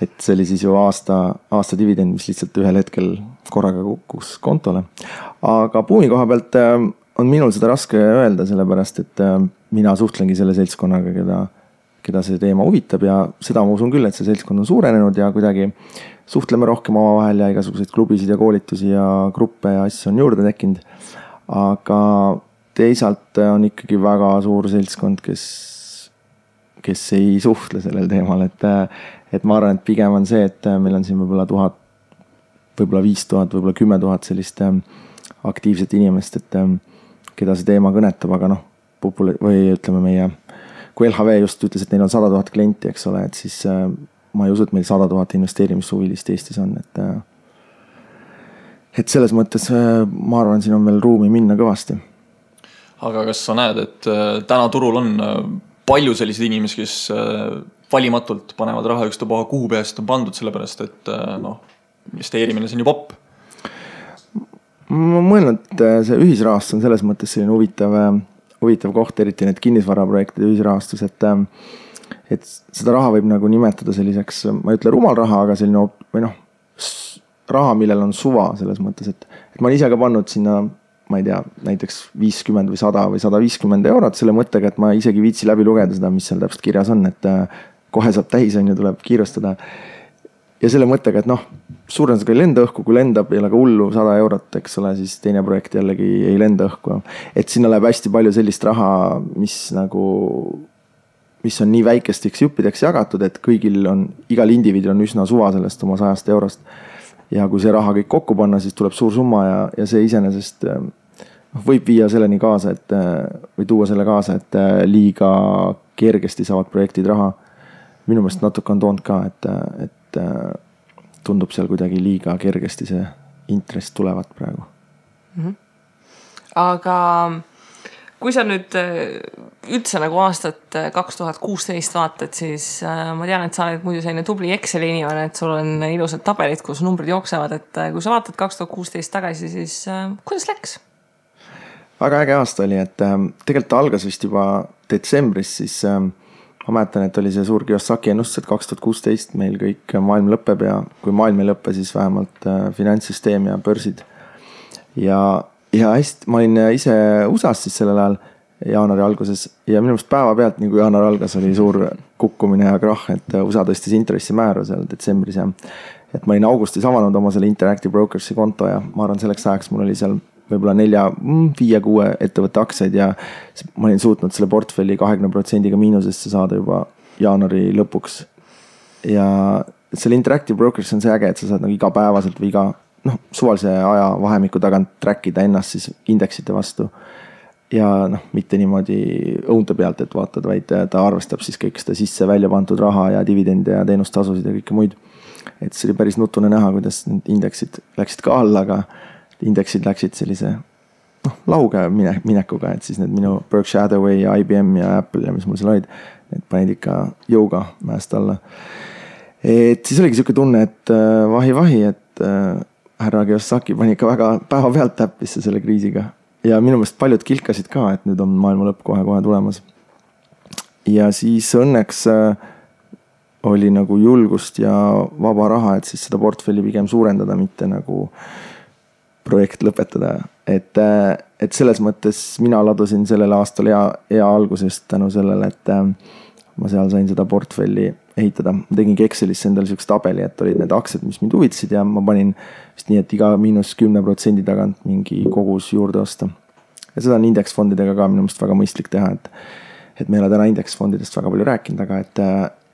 Et see oli siis ju aasta dividend, mis lihtsalt ühel hetkel korraga kukkus kontole. Aga buumi koha pealt on minul seda raske öelda, sellepärast, et mina suhtlengi selle seltskonnaga, keda see teema huvitab ja seda ma usun küll, et see seltskond on suurenenud ja kuidagi suhtleme rohkem omavahel ja igasuguseid klubisid ja koolitusi ja gruppe ja asju on juurde tekkinud. Aga teisalt on ikkagi väga suur seltskond, kes ei suhtle sellel teemal, et ma arvan, et pigem on see, et meil on siin võib-olla 1000, võib-olla 5000, võib-olla 10 000 sellist aktiivset inimest, et keda see teema kõnetab, aga või ütleme meie, kui LHV just ütles, et neil on 100 000 klienti, eks ole, et siis ma ei usu, et meil 100 000 investeerimissuvilist Eestis on, et selles mõttes ma arvan, siin on veel ruumi minna kõvasti. Aga kas sa näed, et täna turul on palju selliseid inimesi, kes valimatult panevad raha ükstapuha kuhu peast on pandud, sellepärast, et investeerimine see on ju popp? Ma mõelnud, et see ühisrahastus on selles mõttes selline huvitav koht, eriti need kinnisvaraprojektide ühisrahastus, et seda raha võib nagu nimetada selliseks, ma ei ütle rumal raha, aga selline raha, millel on suva selles mõttes, et ma olen ise ka pannud sinna, ma ei tea, näiteks 50 või 100 või 150 eurot selle mõttega, et ma isegi viitsi läbi lugeda seda, mis seal täpselt kirjas on, et kohe saab täis, tuleb kiirustada. Ja selle mõttega, et suurendas ka ei lenda õhku, kui lendab ei ole ka hullu 100 eurot, eks ole, siis teine projekt jällegi ei lenda õhku. Et sinna läheb hästi palju sellist raha, mis on nii väikesteks juppideks jagatud, et igal indiviidil on üsna suva sellest oma 100 eurost. Ja kui see raha kõik kokku panna, siis tuleb suur summa ja see iseenesest võib viia selleni kaasa, või tuua selle kaasa, et liiga kergesti saavad projektid raha. Minu meelest natuke on toonud ka, et tundub seal kuidagi liiga kergesti see intress tulevad praegu. Aga kui sa nüüd üldse nagu aastat 2016 vaatad, siis ma tean, et sa oled muidu selline tubli Exceli inimene, et sul on ilusad tabelid, kus numbrid jooksevad, et kui sa vaatad 2016 tagasi, siis kuidas läks? Väga äge aasta oli, et tegelikult algas vist juba detsembris, siis ma mäletan, et oli see suur Kiyosaki ennustus, et 2016 meil kõik maailm lõpeb ja kui maailm ei lõppe, siis vähemalt finantssüsteem ja börsid. Ja hästi, ma olin ise USA-s siis sellel ajal jaanuari alguses ja minu meelest päeva pealt, nii kui jaanuar algas, oli suur kukkumine ja krahh, et USA tõstis intressimäära seal detsembris ja et ma olin augustis avanud oma selle Interactive Brokersi konto ja ma arvan, selleks ajaks mul oli seal võib-olla 4-5-6 ettevõtte aktsiaid ja ma olin suutnud selle portfelli 20% miinusesse saada juba jaanuari lõpuks. Ja selle Interactive Brokers on see äge, et sa saad nagu igapäevaselt või suvalise aja vahemiku tagant trackida ennast siis indeksite vastu. Ja mitte niimoodi õunte pealt, et vaatad, vaid ta arvestab siis kõik seda sisse välja pandud raha ja dividende ja teenustasusid ja kõike muid. Et see oli päris nutune näha, kuidas need indeksid läksid ka alla, aga indeksid läksid sellise lauge minekuga, et siis need minu Berkshire Hathaway ja IBM ja Apple ja mis mul seal olid, need panid ikka jõuga mäest alla. Et siis oligi selline tunne, et vahi, et härra Kiyosaki pani ikka väga päeva pealt täppisse selle kriisiga. Ja minu meelest paljud kilkasid ka, et nüüd on maailma lõpp kohe tulemas. Ja siis õnneks oli nagu julgust ja vaba raha, et siis seda portfelli pigem suurendada, mitte nagu projekt lõpetada. Et selles mõttes mina ladusin sellel aastal hea algusest tänu sellele, et ma seal sain seda portfelli ehitada. Ma tegingi Excelisse endale selleks tabeli, et olid need aktsiad, mis mind huvitasid ja ma panin vist nii, et iga -10% tagant mingi kogus juurde osta. Ja seda on indeksfondidega ka minu mõist väga mõistlik teha, et me ei ole täna indeksfondidest väga palju rääkinud, aga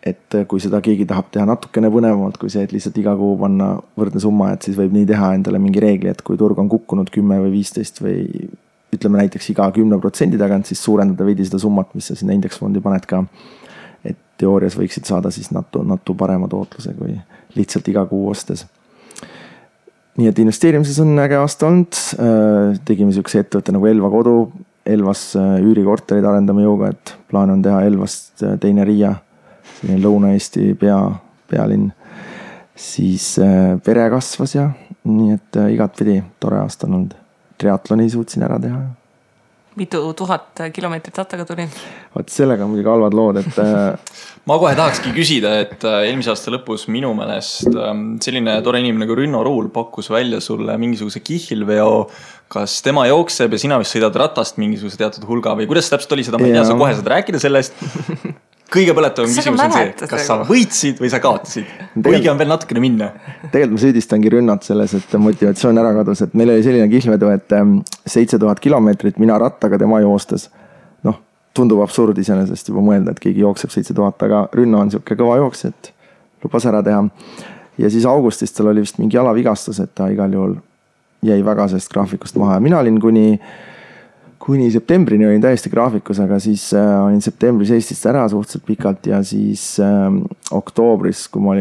et kui seda keegi tahab teha natukene põnevamalt, kui see, et lihtsalt iga kuu panna võrdne summa, et siis võib nii teha endale mingi reegli, et kui turg on kukkunud 10 või 15 või ütleme näiteks iga 10% tagant, siis suurendada veidi seda summat, mis sa sinna indeksfondi paned ka. Et teoorias võiksid saada siis natu parema tootluse kui lihtsalt iga kuu ostes. Nii et investeerimises on äge aasta olnud. Tegime sellise ettevõtte nagu Elva kodu. Elvas üürikorterid arendame jõuga, et plaan on teha Elvast teine Riia. Selline Lõuna-Eesti pealinn. Siis pere kasvas ja nii, et igat pidi tore aasta on olnud. Triatloni suutsin ära teha. Mitu 1000 kilomeetrit rattaga tuli? Vaat sellega on muidugi halvad lood, et ma kohe tahakski küsida, et eelmise aasta lõpus minu meelest selline tore inimene nagu Rünno Ruul pakkus välja sulle mingisuguse kihlveo. Kas tema jookseb ja sina vist sõidad ratast mingisuguse teatud hulga või kuidas täpselt oli seda? Ma ei tea, sa kohe saad rääkida sellest. Kõige põletavam küsimus on see, kas sa võitsid või sa kaotasid. Õige on veel natukene minna. Tegelikult ma süüdistangi Rünnat selles, et motivatsioon ära kadus, et meil oli selline kihlvedu, et 7000 kilomeetrit mina rattaga tema joostes. Noh, tundub absurd iseenesest juba mõelda, et keegi jookseb 7000, aga Rünno on siuke kõva jooks, et lubas ära teha. Ja siis augustis tal oli vist mingi jalavigastus, et ta igal juhul jäi väga sellest graafikust maha. Ja mina olin kuni septembrini olin täiesti graafikus, aga siis olin septembris Eestist ära suhteliselt pikalt ja siis oktoobris, kui ma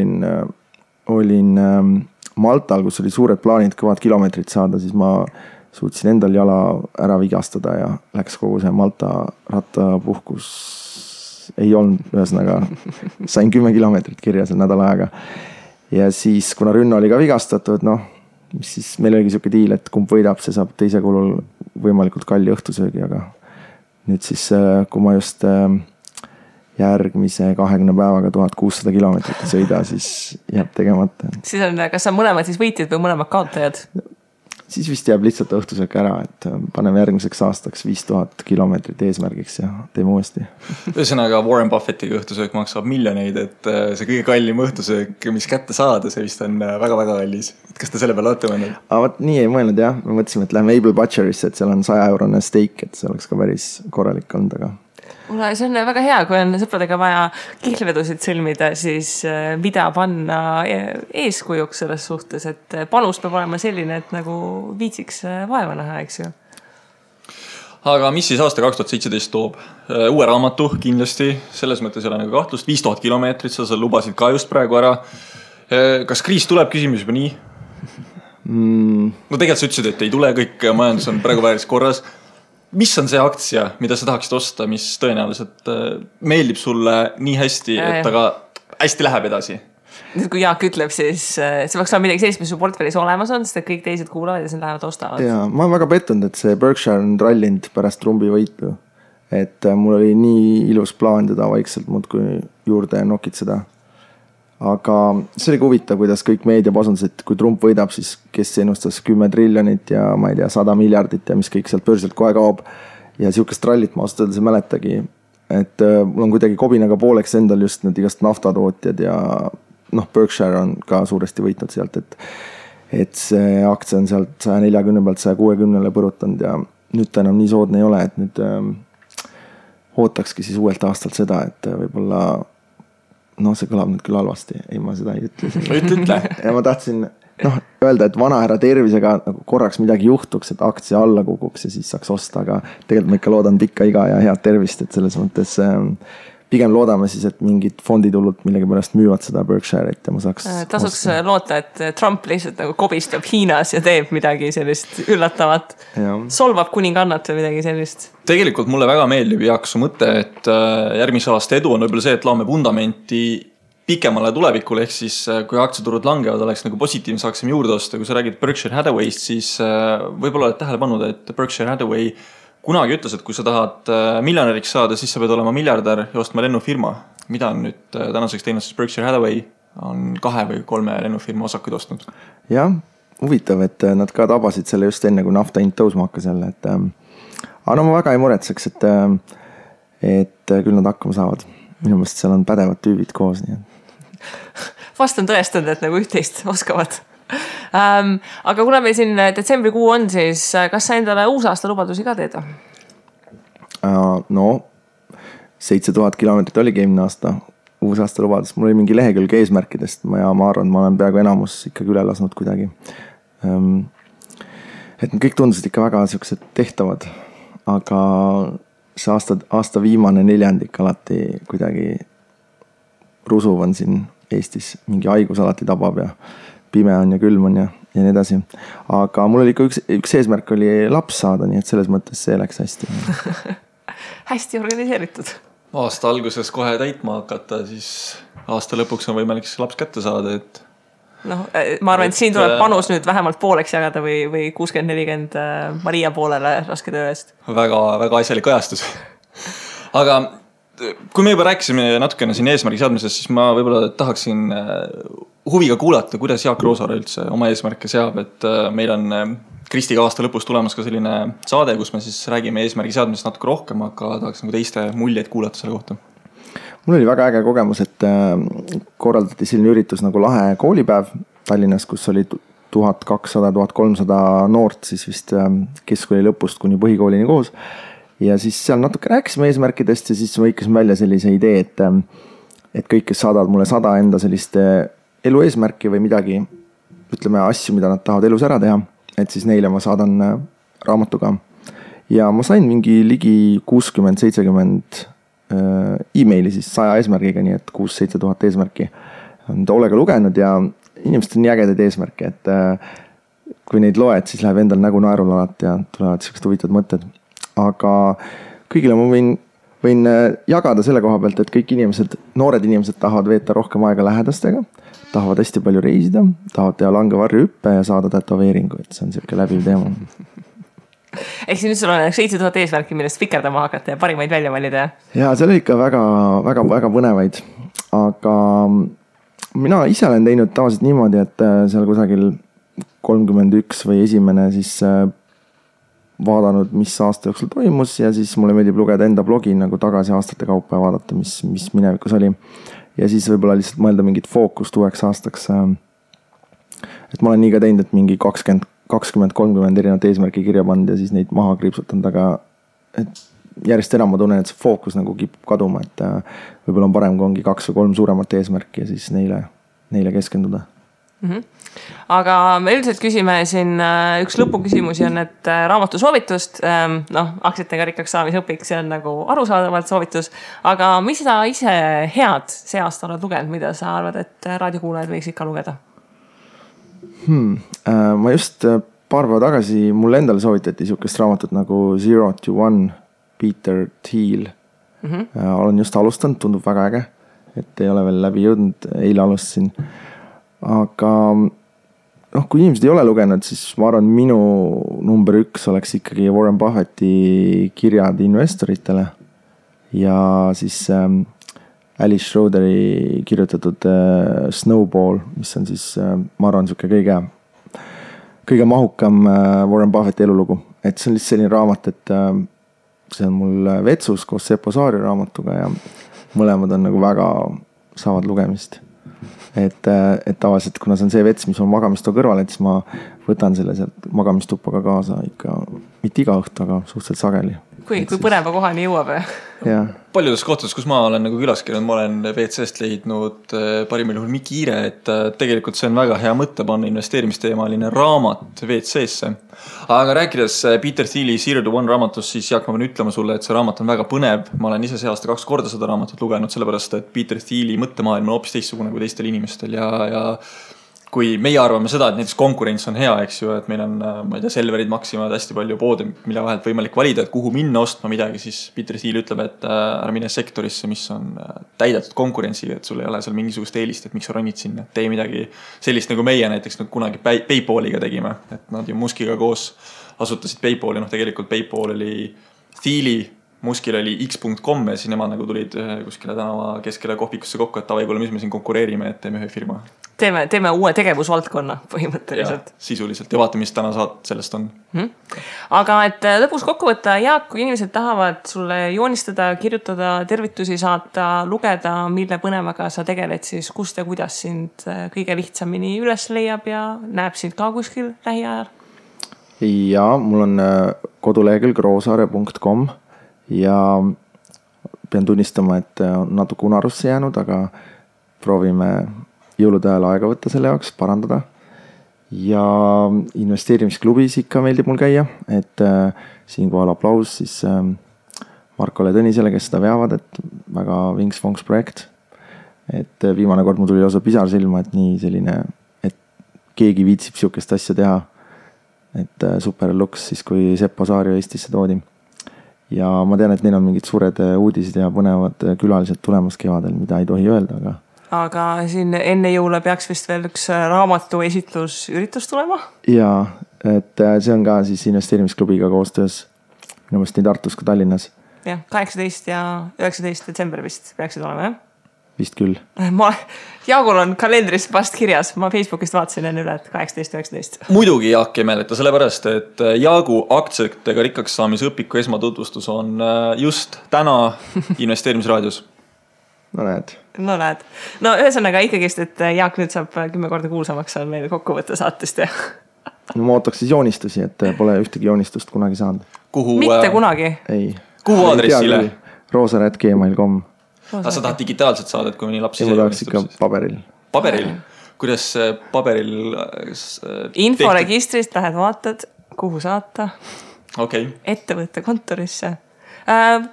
olin Maltal, kus oli suured plaanid kõvad kilomeetrid saada, siis ma suutsin endal jala ära vigastada ja läks kogu see Malta rattapuhkus ei olnud, ühesõnaga sain 10 kilomeetrit kirja seal nädala ajaga. Ja siis, kuna Rünno oli ka vigastatud, siis meil oligi siuke diil, et kumb võidab, see saab teise kulul võimalikult kalli õhtusöögi, aga nüüd siis, kui ma just järgmise 20 päevaga 1600 kilomeetrit sõida, siis jääb tegemata. Siis on, kas sa mõlemad siis võitjad või mõlemad kaotajad? Siis vist jääb lihtsalt õhtusöök ära, et paneme järgmiseks aastaks 5000 kilomeetrit eesmärgiks ja teeme uuesti. Ühesõnaga Warren Buffettiga õhtusöök maksab miljoneid, et see kõige kallim õhtusöök, mis kätte saada, see vist on väga-väga kallis. Kas te selle peale olete mõelnud? Vaat nii ei mõelnud jah, me mõtlesime, et lähme Able Butcherisse, et seal on 100-eurone steak, et see oleks ka päris korralik olnud, aga see on väga hea, kui on sõpradega vaja kihlvedusid sõlmida, siis mida panna eeskujuks selles suhtes, et panus peab olema selline, et nagu viitsiks vaeva näha, eks ju. Aga mis siis aasta 2017 toob? Uue raamatu kindlasti, selles mõttes ei ole nagu kahtlust, 5000 kilomeetrit, sa lubasid ka just praegu ära. Kas kriis tuleb, küsimus juba nii? No tegelikult sa ütlesid, et ei tule, kõik majandus on praegu vääris korras. Mis on see aktsia, mida sa tahaksid osta, mis tõenäoliselt meeldib sulle nii hästi, et aga hästi läheb edasi? Nüüd kui Jaak ütleb, siis see peaks olema midagi sellist, mis su portfellis olemas on, sest kõik teised kuulavad ja siis lähevad ostavad. Ja, ma olen väga pettunud, et see Berkshire on rallinud pärast Trumpi võitu. Et mul oli nii ilus plaan teda vaikselt muudkui juurde nokitseda. Aga see oli huvitav, kuidas kõik meedia pasundas, et kui Trump võidab, siis kes ennustas 10 triljonit ja ma ei tea, 100 miljardit ja mis kõik sealt börsilt kohe kaob. Ja siukest rallit ma ausalt ei mäletagi. Et mul on kuidagi kobinaga pooleks endal just need igast naftatootjad ja Berkshire on ka suuresti võitnud sealt, et see aktsia on sealt 140 pealt 160 põrutanud ja nüüd ta enam nii soodne ei ole, et nüüd ootakski siis uuelt aastalt seda, et võib-olla see kõlab nüüd küll halvasti. Ei, ma seda ei ütle. Ütle. Ja ma tahtsin öelda, et vanahärra tervisega nagu korraks midagi juhtuks, et aktsia alla kukuks ja siis saaks osta, aga tegelikult ma ikka loodan pikka iga ja head tervist, et selles mõttes pigem loodame siis, et mingid fonditulud millegi pärast müüvad seda Berkshire'it ja ma saaks tasuks loota, et Trump lihtsalt nagu kobistab Hiinas ja teeb midagi sellist üllatavat. Solvab kuningannat või midagi sellist. Tegelikult mulle väga meeldib, Jaak, su mõte, et järgmise aasta edu on võib-olla see, et laame fundamenti pikemale tulevikule, ehk siis kui aktsiaturud langevad, oleks nagu positiivne, saaksime juurde osta. Kui sa räägid Berkshire Hathaway'st, siis võib-olla oled tähele pannud, et Berkshire Hathaway kunagi ütles, et kui sa tahad miljonäriks saada, siis sa pead olema miljardär ja ostma lennufirma. mida on nüüd tänaseks teinud siis Berkshire Hathaway, on 2 või 3 lennufirma osakuid ostnud. Jah, huvitav, et nad ka tabasid selle just enne, kui nafta hind tõusma hakkas jälle, et aga no ma väga ei muretseks, et küll nad hakkama saavad. Minu meelest seal on pädevad tüübid koos, nii Vast on tõestanud, et nagu üht-teist oskavad. Aga kuna meil siin detsembrikuu on, siis kas sa endale uusaasta lubadusi ka teed? No 7000 kilomeetrit oligi eelmine aasta uusaasta lubadus. Mul oli mingi lehekülg eesmärkidest ja ma arvan, ma olen peaaegu enamus ikkagi üle lasnud kuidagi. Et kõik tundusid ikka väga sellised tehtavad, aga see aasta viimane 4. alati kuidagi rusuv on siin Eestis, mingi haigus alati tabab ja pime on ja külm on ja nii edasi. Aga mul oli ikka üks eesmärk oli laps saada, nii et selles mõttes see läks hästi. Hästi organiseeritud. Aasta alguses kohe täitma hakata, siis aasta lõpuks on võimalik laps kätte saada, et no, ma arvan, et siin tuleb panus nüüd vähemalt pooleks jagada või 60-40 Maria poolele raske töö eest. Väga, väga asjalik ajastus. Aga kui me juba rääkisime natukene siin eesmärgi seadmisest, siis ma võib-olla tahaksin huviga kuulata, kuidas Jaak Roosaare üldse oma eesmärke seab, et meil on Kristiga aasta lõpus tulemas ka selline saade, kus me siis räägime eesmärgi seadmisest natuke rohkem, aga tahaks nagu teiste muljeid kuulata selle kohta. Mul oli väga äge kogemus, et korraldati selline üritus nagu lahe koolipäev Tallinnas, kus oli 1200-1300 noort siis vist keskkooli lõpust kuni põhikoolini koos. Ja siis seal natuke rääkisime eesmärkidest ja siis võikasime välja sellise idee, et kõik, kes saadavad mulle 100 enda sellist elu eesmärki või midagi, ütleme asju, mida nad tahavad elus ära teha, et siis neile ma saadan raamatuga. Ja ma sain mingi ligi 60-70 e-maili siis 100 eesmärgiga, nii et 6-7 tuhat eesmärki on toolega lugenud ja inimesed on nii ägedaid eesmärke, et kui neid loed, siis läheb endal nägu naerul alati ja tulevad sellised huvitavad mõtted. Aga kõigile ma võin jagada selle koha pealt, et kõik inimesed, noored inimesed tahavad veeta rohkem aega lähedastega, tahavad hästi palju reisida, tahavad teha langevarju hüppe ja saada tätoveeringu, et see on selline läbiv teema. Ehk siis nüüd sul on 7000 eesmärki, millest fikerdama hakata ja parimaid välja valida? Ja seal oli ikka väga, väga, väga põnevaid, aga mina ise olen teinud tavaliselt niimoodi, et seal kusagil 31 või esimene siis vaadanud, mis aasta jooksul toimus ja siis mulle meeldib lugeda enda blogi nagu tagasi aastate kaupa ja vaadata, mis minevikus oli. Ja siis võib-olla lihtsalt mõelda mingit fookust uueks aastaks. Et ma olen nii ka teinud, et mingi 20-30 erinevat eesmärki kirja pannud ja siis neid maha kriipsutanud, aga et järjest enam ma tunnen, et see fookus nagu kipub kaduma, et võib-olla on parem, kui ongi 2 või 3 suuremat eesmärki ja siis neile keskenduda. Aga me üldiselt küsime siin üks lõpuküsimusi on, et raamatu soovitust, aktsiatega rikkaks saamise õpik, see on nagu arusaadavalt soovitus, aga mis sa ise head see aasta oled lugenud, mida sa arvad, et raadiokuulajad võiks ikka lugeda? Ma just paar päeva tagasi mulle endale soovitati niisugust raamatut nagu 0 to 1 Peter Thiel. Olen just alustanud, tundub väga äge, et ei ole veel läbi jõudnud, eile alustasin. Aga kui inimesed ei ole lugenud, siis ma arvan, minu number 1 oleks ikkagi Warren Buffetti kirjad investoritele ja siis Alice Schroderi kirjutatud Snowball, mis on siis, ma arvan, kõige mahukam Warren Buffetti elulugu. Et see on lihtsalt selline raamat, et see on mul vetsus koos Seppo Saari raamatuga ja mõlemad on nagu väga saavad lugemist. Et tavaliselt, kuna see on see vets, mis on magamistoa kõrval, et siis ma võtan selle sealt magamistuppa ka kaasa ikka, mitte iga õhtu, aga suhteliselt sageli. Kui põneva kohani jõuab. Paljudes kohtades, kus ma olen nagu külas käinud, ma olen WC-st leidnud parimal juhul Mikiire, et tegelikult see on väga hea mõte panna investeerimisteemaline raamat WC-sse. Aga rääkides Peter Thieli 0 to 1 raamatust, siis Jaak, ma pean ütlema sulle, et see raamat on väga põnev. Ma olen ise see aasta 2 korda seda raamatut lugenud, sellepärast, et Peter Thieli mõttemaailm on hoopis teistsugune kui teistel inimestel ja kui meie arvame seda, et näiteks konkurents on hea, eks ju, et meil on, ma ei tea, Selverid, Maximad, hästi palju poode, mille vahelt võimalik valida, et kuhu minna ostma midagi, siis Peter Thiel ütleb, et ära mine sektorisse, mis on täidetud konkurentsiga, et sul ei ole seal mingisugust eelist, et miks sa ronid sinna, tee midagi sellist nagu meie näiteks nagu kunagi PayPaliga tegime, et nad ju Muskiga koos asutasid PayPali, tegelikult PayPal oli Thieli Muskil oli x.com ja siis nemad nagu tulid kuskile tänava keskele kohvikusse kokku, et tavai, kuule, mis me siin konkureerime, et teeme ühe firma. Teeme uue tegevusvaldkonna põhimõtteliselt. Ja, sisuliselt ja vaata, mis täna sellest on. Aga et lõpus kokku võtta, Jaak, kui inimesed tahavad sulle joonistada, kirjutada, tervitusi saata, lugeda, mille põnevaga sa tegeled, siis kust ja kuidas sind kõige lihtsamini üles leiab ja näeb sind ka kuskil lähiajal? Ja mul on kodulehekülg roosaare.com ja pean tunnistama, et on natuke unarusse jäänud, aga proovime jõulude ajal aega võtta selle jaoks, parandada. Ja investeerimisklubis ikka meeldib mul käia, et siinkohal aplaus siis Markole Tõnisele, kes seda veavad, et väga vinks-vonks projekt. Et viimane kord mul tuli lausa pisar silma, et nii selline, et keegi viitsib siukest asja teha. Et super luks siis, kui Seppo Saario Eestisse toodi. Ja ma tean, et neil on mingid suured uudised ja põnevad külalised tulemas kevadel, mida ei tohi öelda, aga siin enne jõule peaks vist veel üks raamatu esitlusüritus tulema? Jaa, et see on ka siis investeerimisklubiga koostöös minu meelest nii Tartus kui Tallinnas. Jah, 18 ja 19 detsember vist peaksid olema, jah? Vist küll. Jaagul on kalendris vast kirjas, ma Facebookist vaatasin enne üle, et 18. Muidugi Jaak ei määleta, sellepärast, et Jaagu aktsiatega rikkaks saamise õpiku esmatutvustus on just täna investeerimisraadios. No näed. No ühesõnaga ikkagist, et Jaak nüüd saab 10 korda kuulsamaks on meil kokkuvõtte saatest. No ma ootaks siis joonistusi, et pole ühtegi joonistust kunagi saanud. Mitte kunagi? Ei. Kuhu aadressile? roosare@gmail.com Aga sa tahad digitaalselt saada, et kui mõni laps ise joonistab? Ikka paberil. Paberil? Kuidas paberil? Inforegistrist lähed vaatad, kuhu saata. Okay. Ettevõtte kontorisse.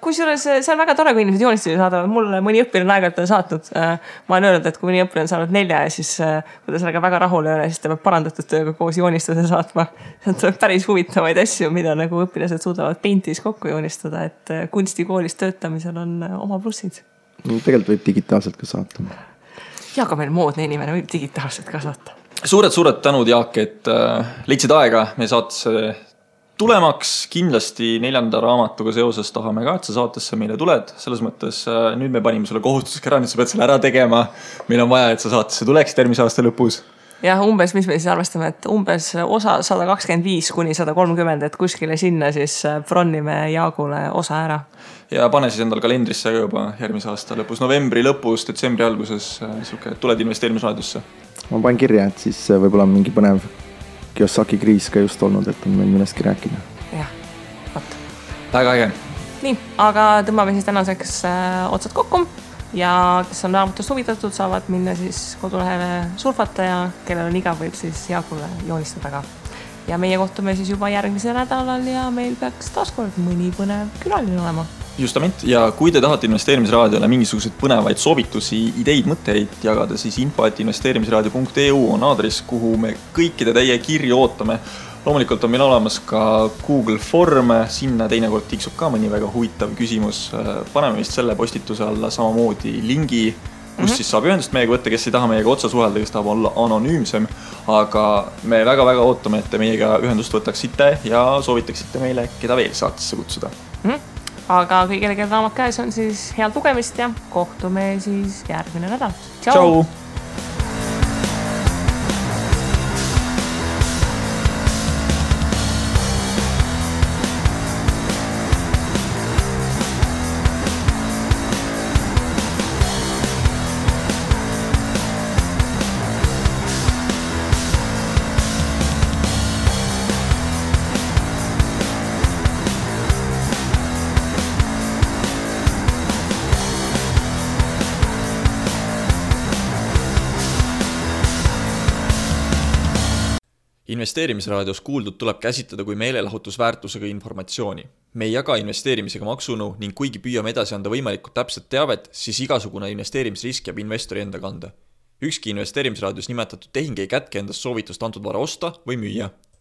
Kusjuures see on väga tore, kui inimesed joonistusi saadavad. Mulle mõni õppiline aeg-ajalt on saatnud. Ma olen öelnud, et kui mõni õppiline on saanud 4 ja siis kui ta sellega väga rahul ei ole, siis ta peab parandatud tööga koos joonistuse saatma. See on päris huvitavaid asju, mida nagu õpilased suudavad Paintis kokku joonistada, et kunstikoolis töötamisel on oma plussid. Tegelikult võib digitaalselt ka saata. Ja ka meil moodne inimene võib digitaalselt ka saata. Suured tänud, Jaak, et leidsid aega meie saatesse tulemaks. Kindlasti 4. raamatuga seoses tahame ka, et sa saatesse meile tuled. Selles mõttes nüüd me panime sulle kohustuseks ära, nüüd sa pead selle ära tegema. Meil on vaja, et sa saatesse tuleksid järgmise aasta lõpus. Jah, umbes, mis me siis arvestame, et umbes osa 125 kuni 130, et kuskile sinna siis bronnime Jaagule osa ära. Ja pane siis endal kalendrisse juba järgmise aasta lõpus, novembri lõpus, detsembri alguses, tuled investeerimisraadiosse. Ma panen kirja, et siis võib-olla mingi põnev Kiyosaki kriis ka just olnud, et on meil millestki rääkida. Jah, võt. Väga äge. Nii, aga tõmbame siis tänaseks otsad kokku. Ja kes on raamatust huvitatud, saavad minna siis kodulehele surfata ja kellel on igav, võib siis Jaagule joonistada ka. Ja meie kohtume siis juba järgmisel nädalal ja meil peaks taaskord mõni põnev külaline olema. Justament, ja kui te tahate investeerimisraadiole mingisuguseid põnevaid soovitusi, ideid, mõtteid jagada, siis info@investeerimisraadio.eu on aadress, kuhu me kõikide teie kirju ootame. Loomulikult on meil olemas ka Google Form, sinna teinekord tiksub ka mõni väga huvitav küsimus. Paneme vist selle postituse alla samamoodi lingi, kus siis saab ühendust meiega võtta, kes ei taha meiega otsa suhelda, kes tahab olla anonüümsem. Aga me väga-väga ootame, et te meiega ühendust võtaksite ja soovitaksite meile, keda veel saatesse kutsuda. Aga kõigile, kelle raamat käes on siis head lugemist ja kohtume siis järgmine nädal. Tšau! Investeerimisraadios kuuldud tuleb käsitleda kui meelelahutusväärtusega informatsiooni. Me ei jaga investeerimisega maksunu ning kuigi püüame edasi anda võimalikult täpset teavet, siis igasugune investeerimisrisk jääb investori enda kanda. Ükski investeerimisraadios nimetatud tehing ei kätke endast soovitust antud vara osta või müüa.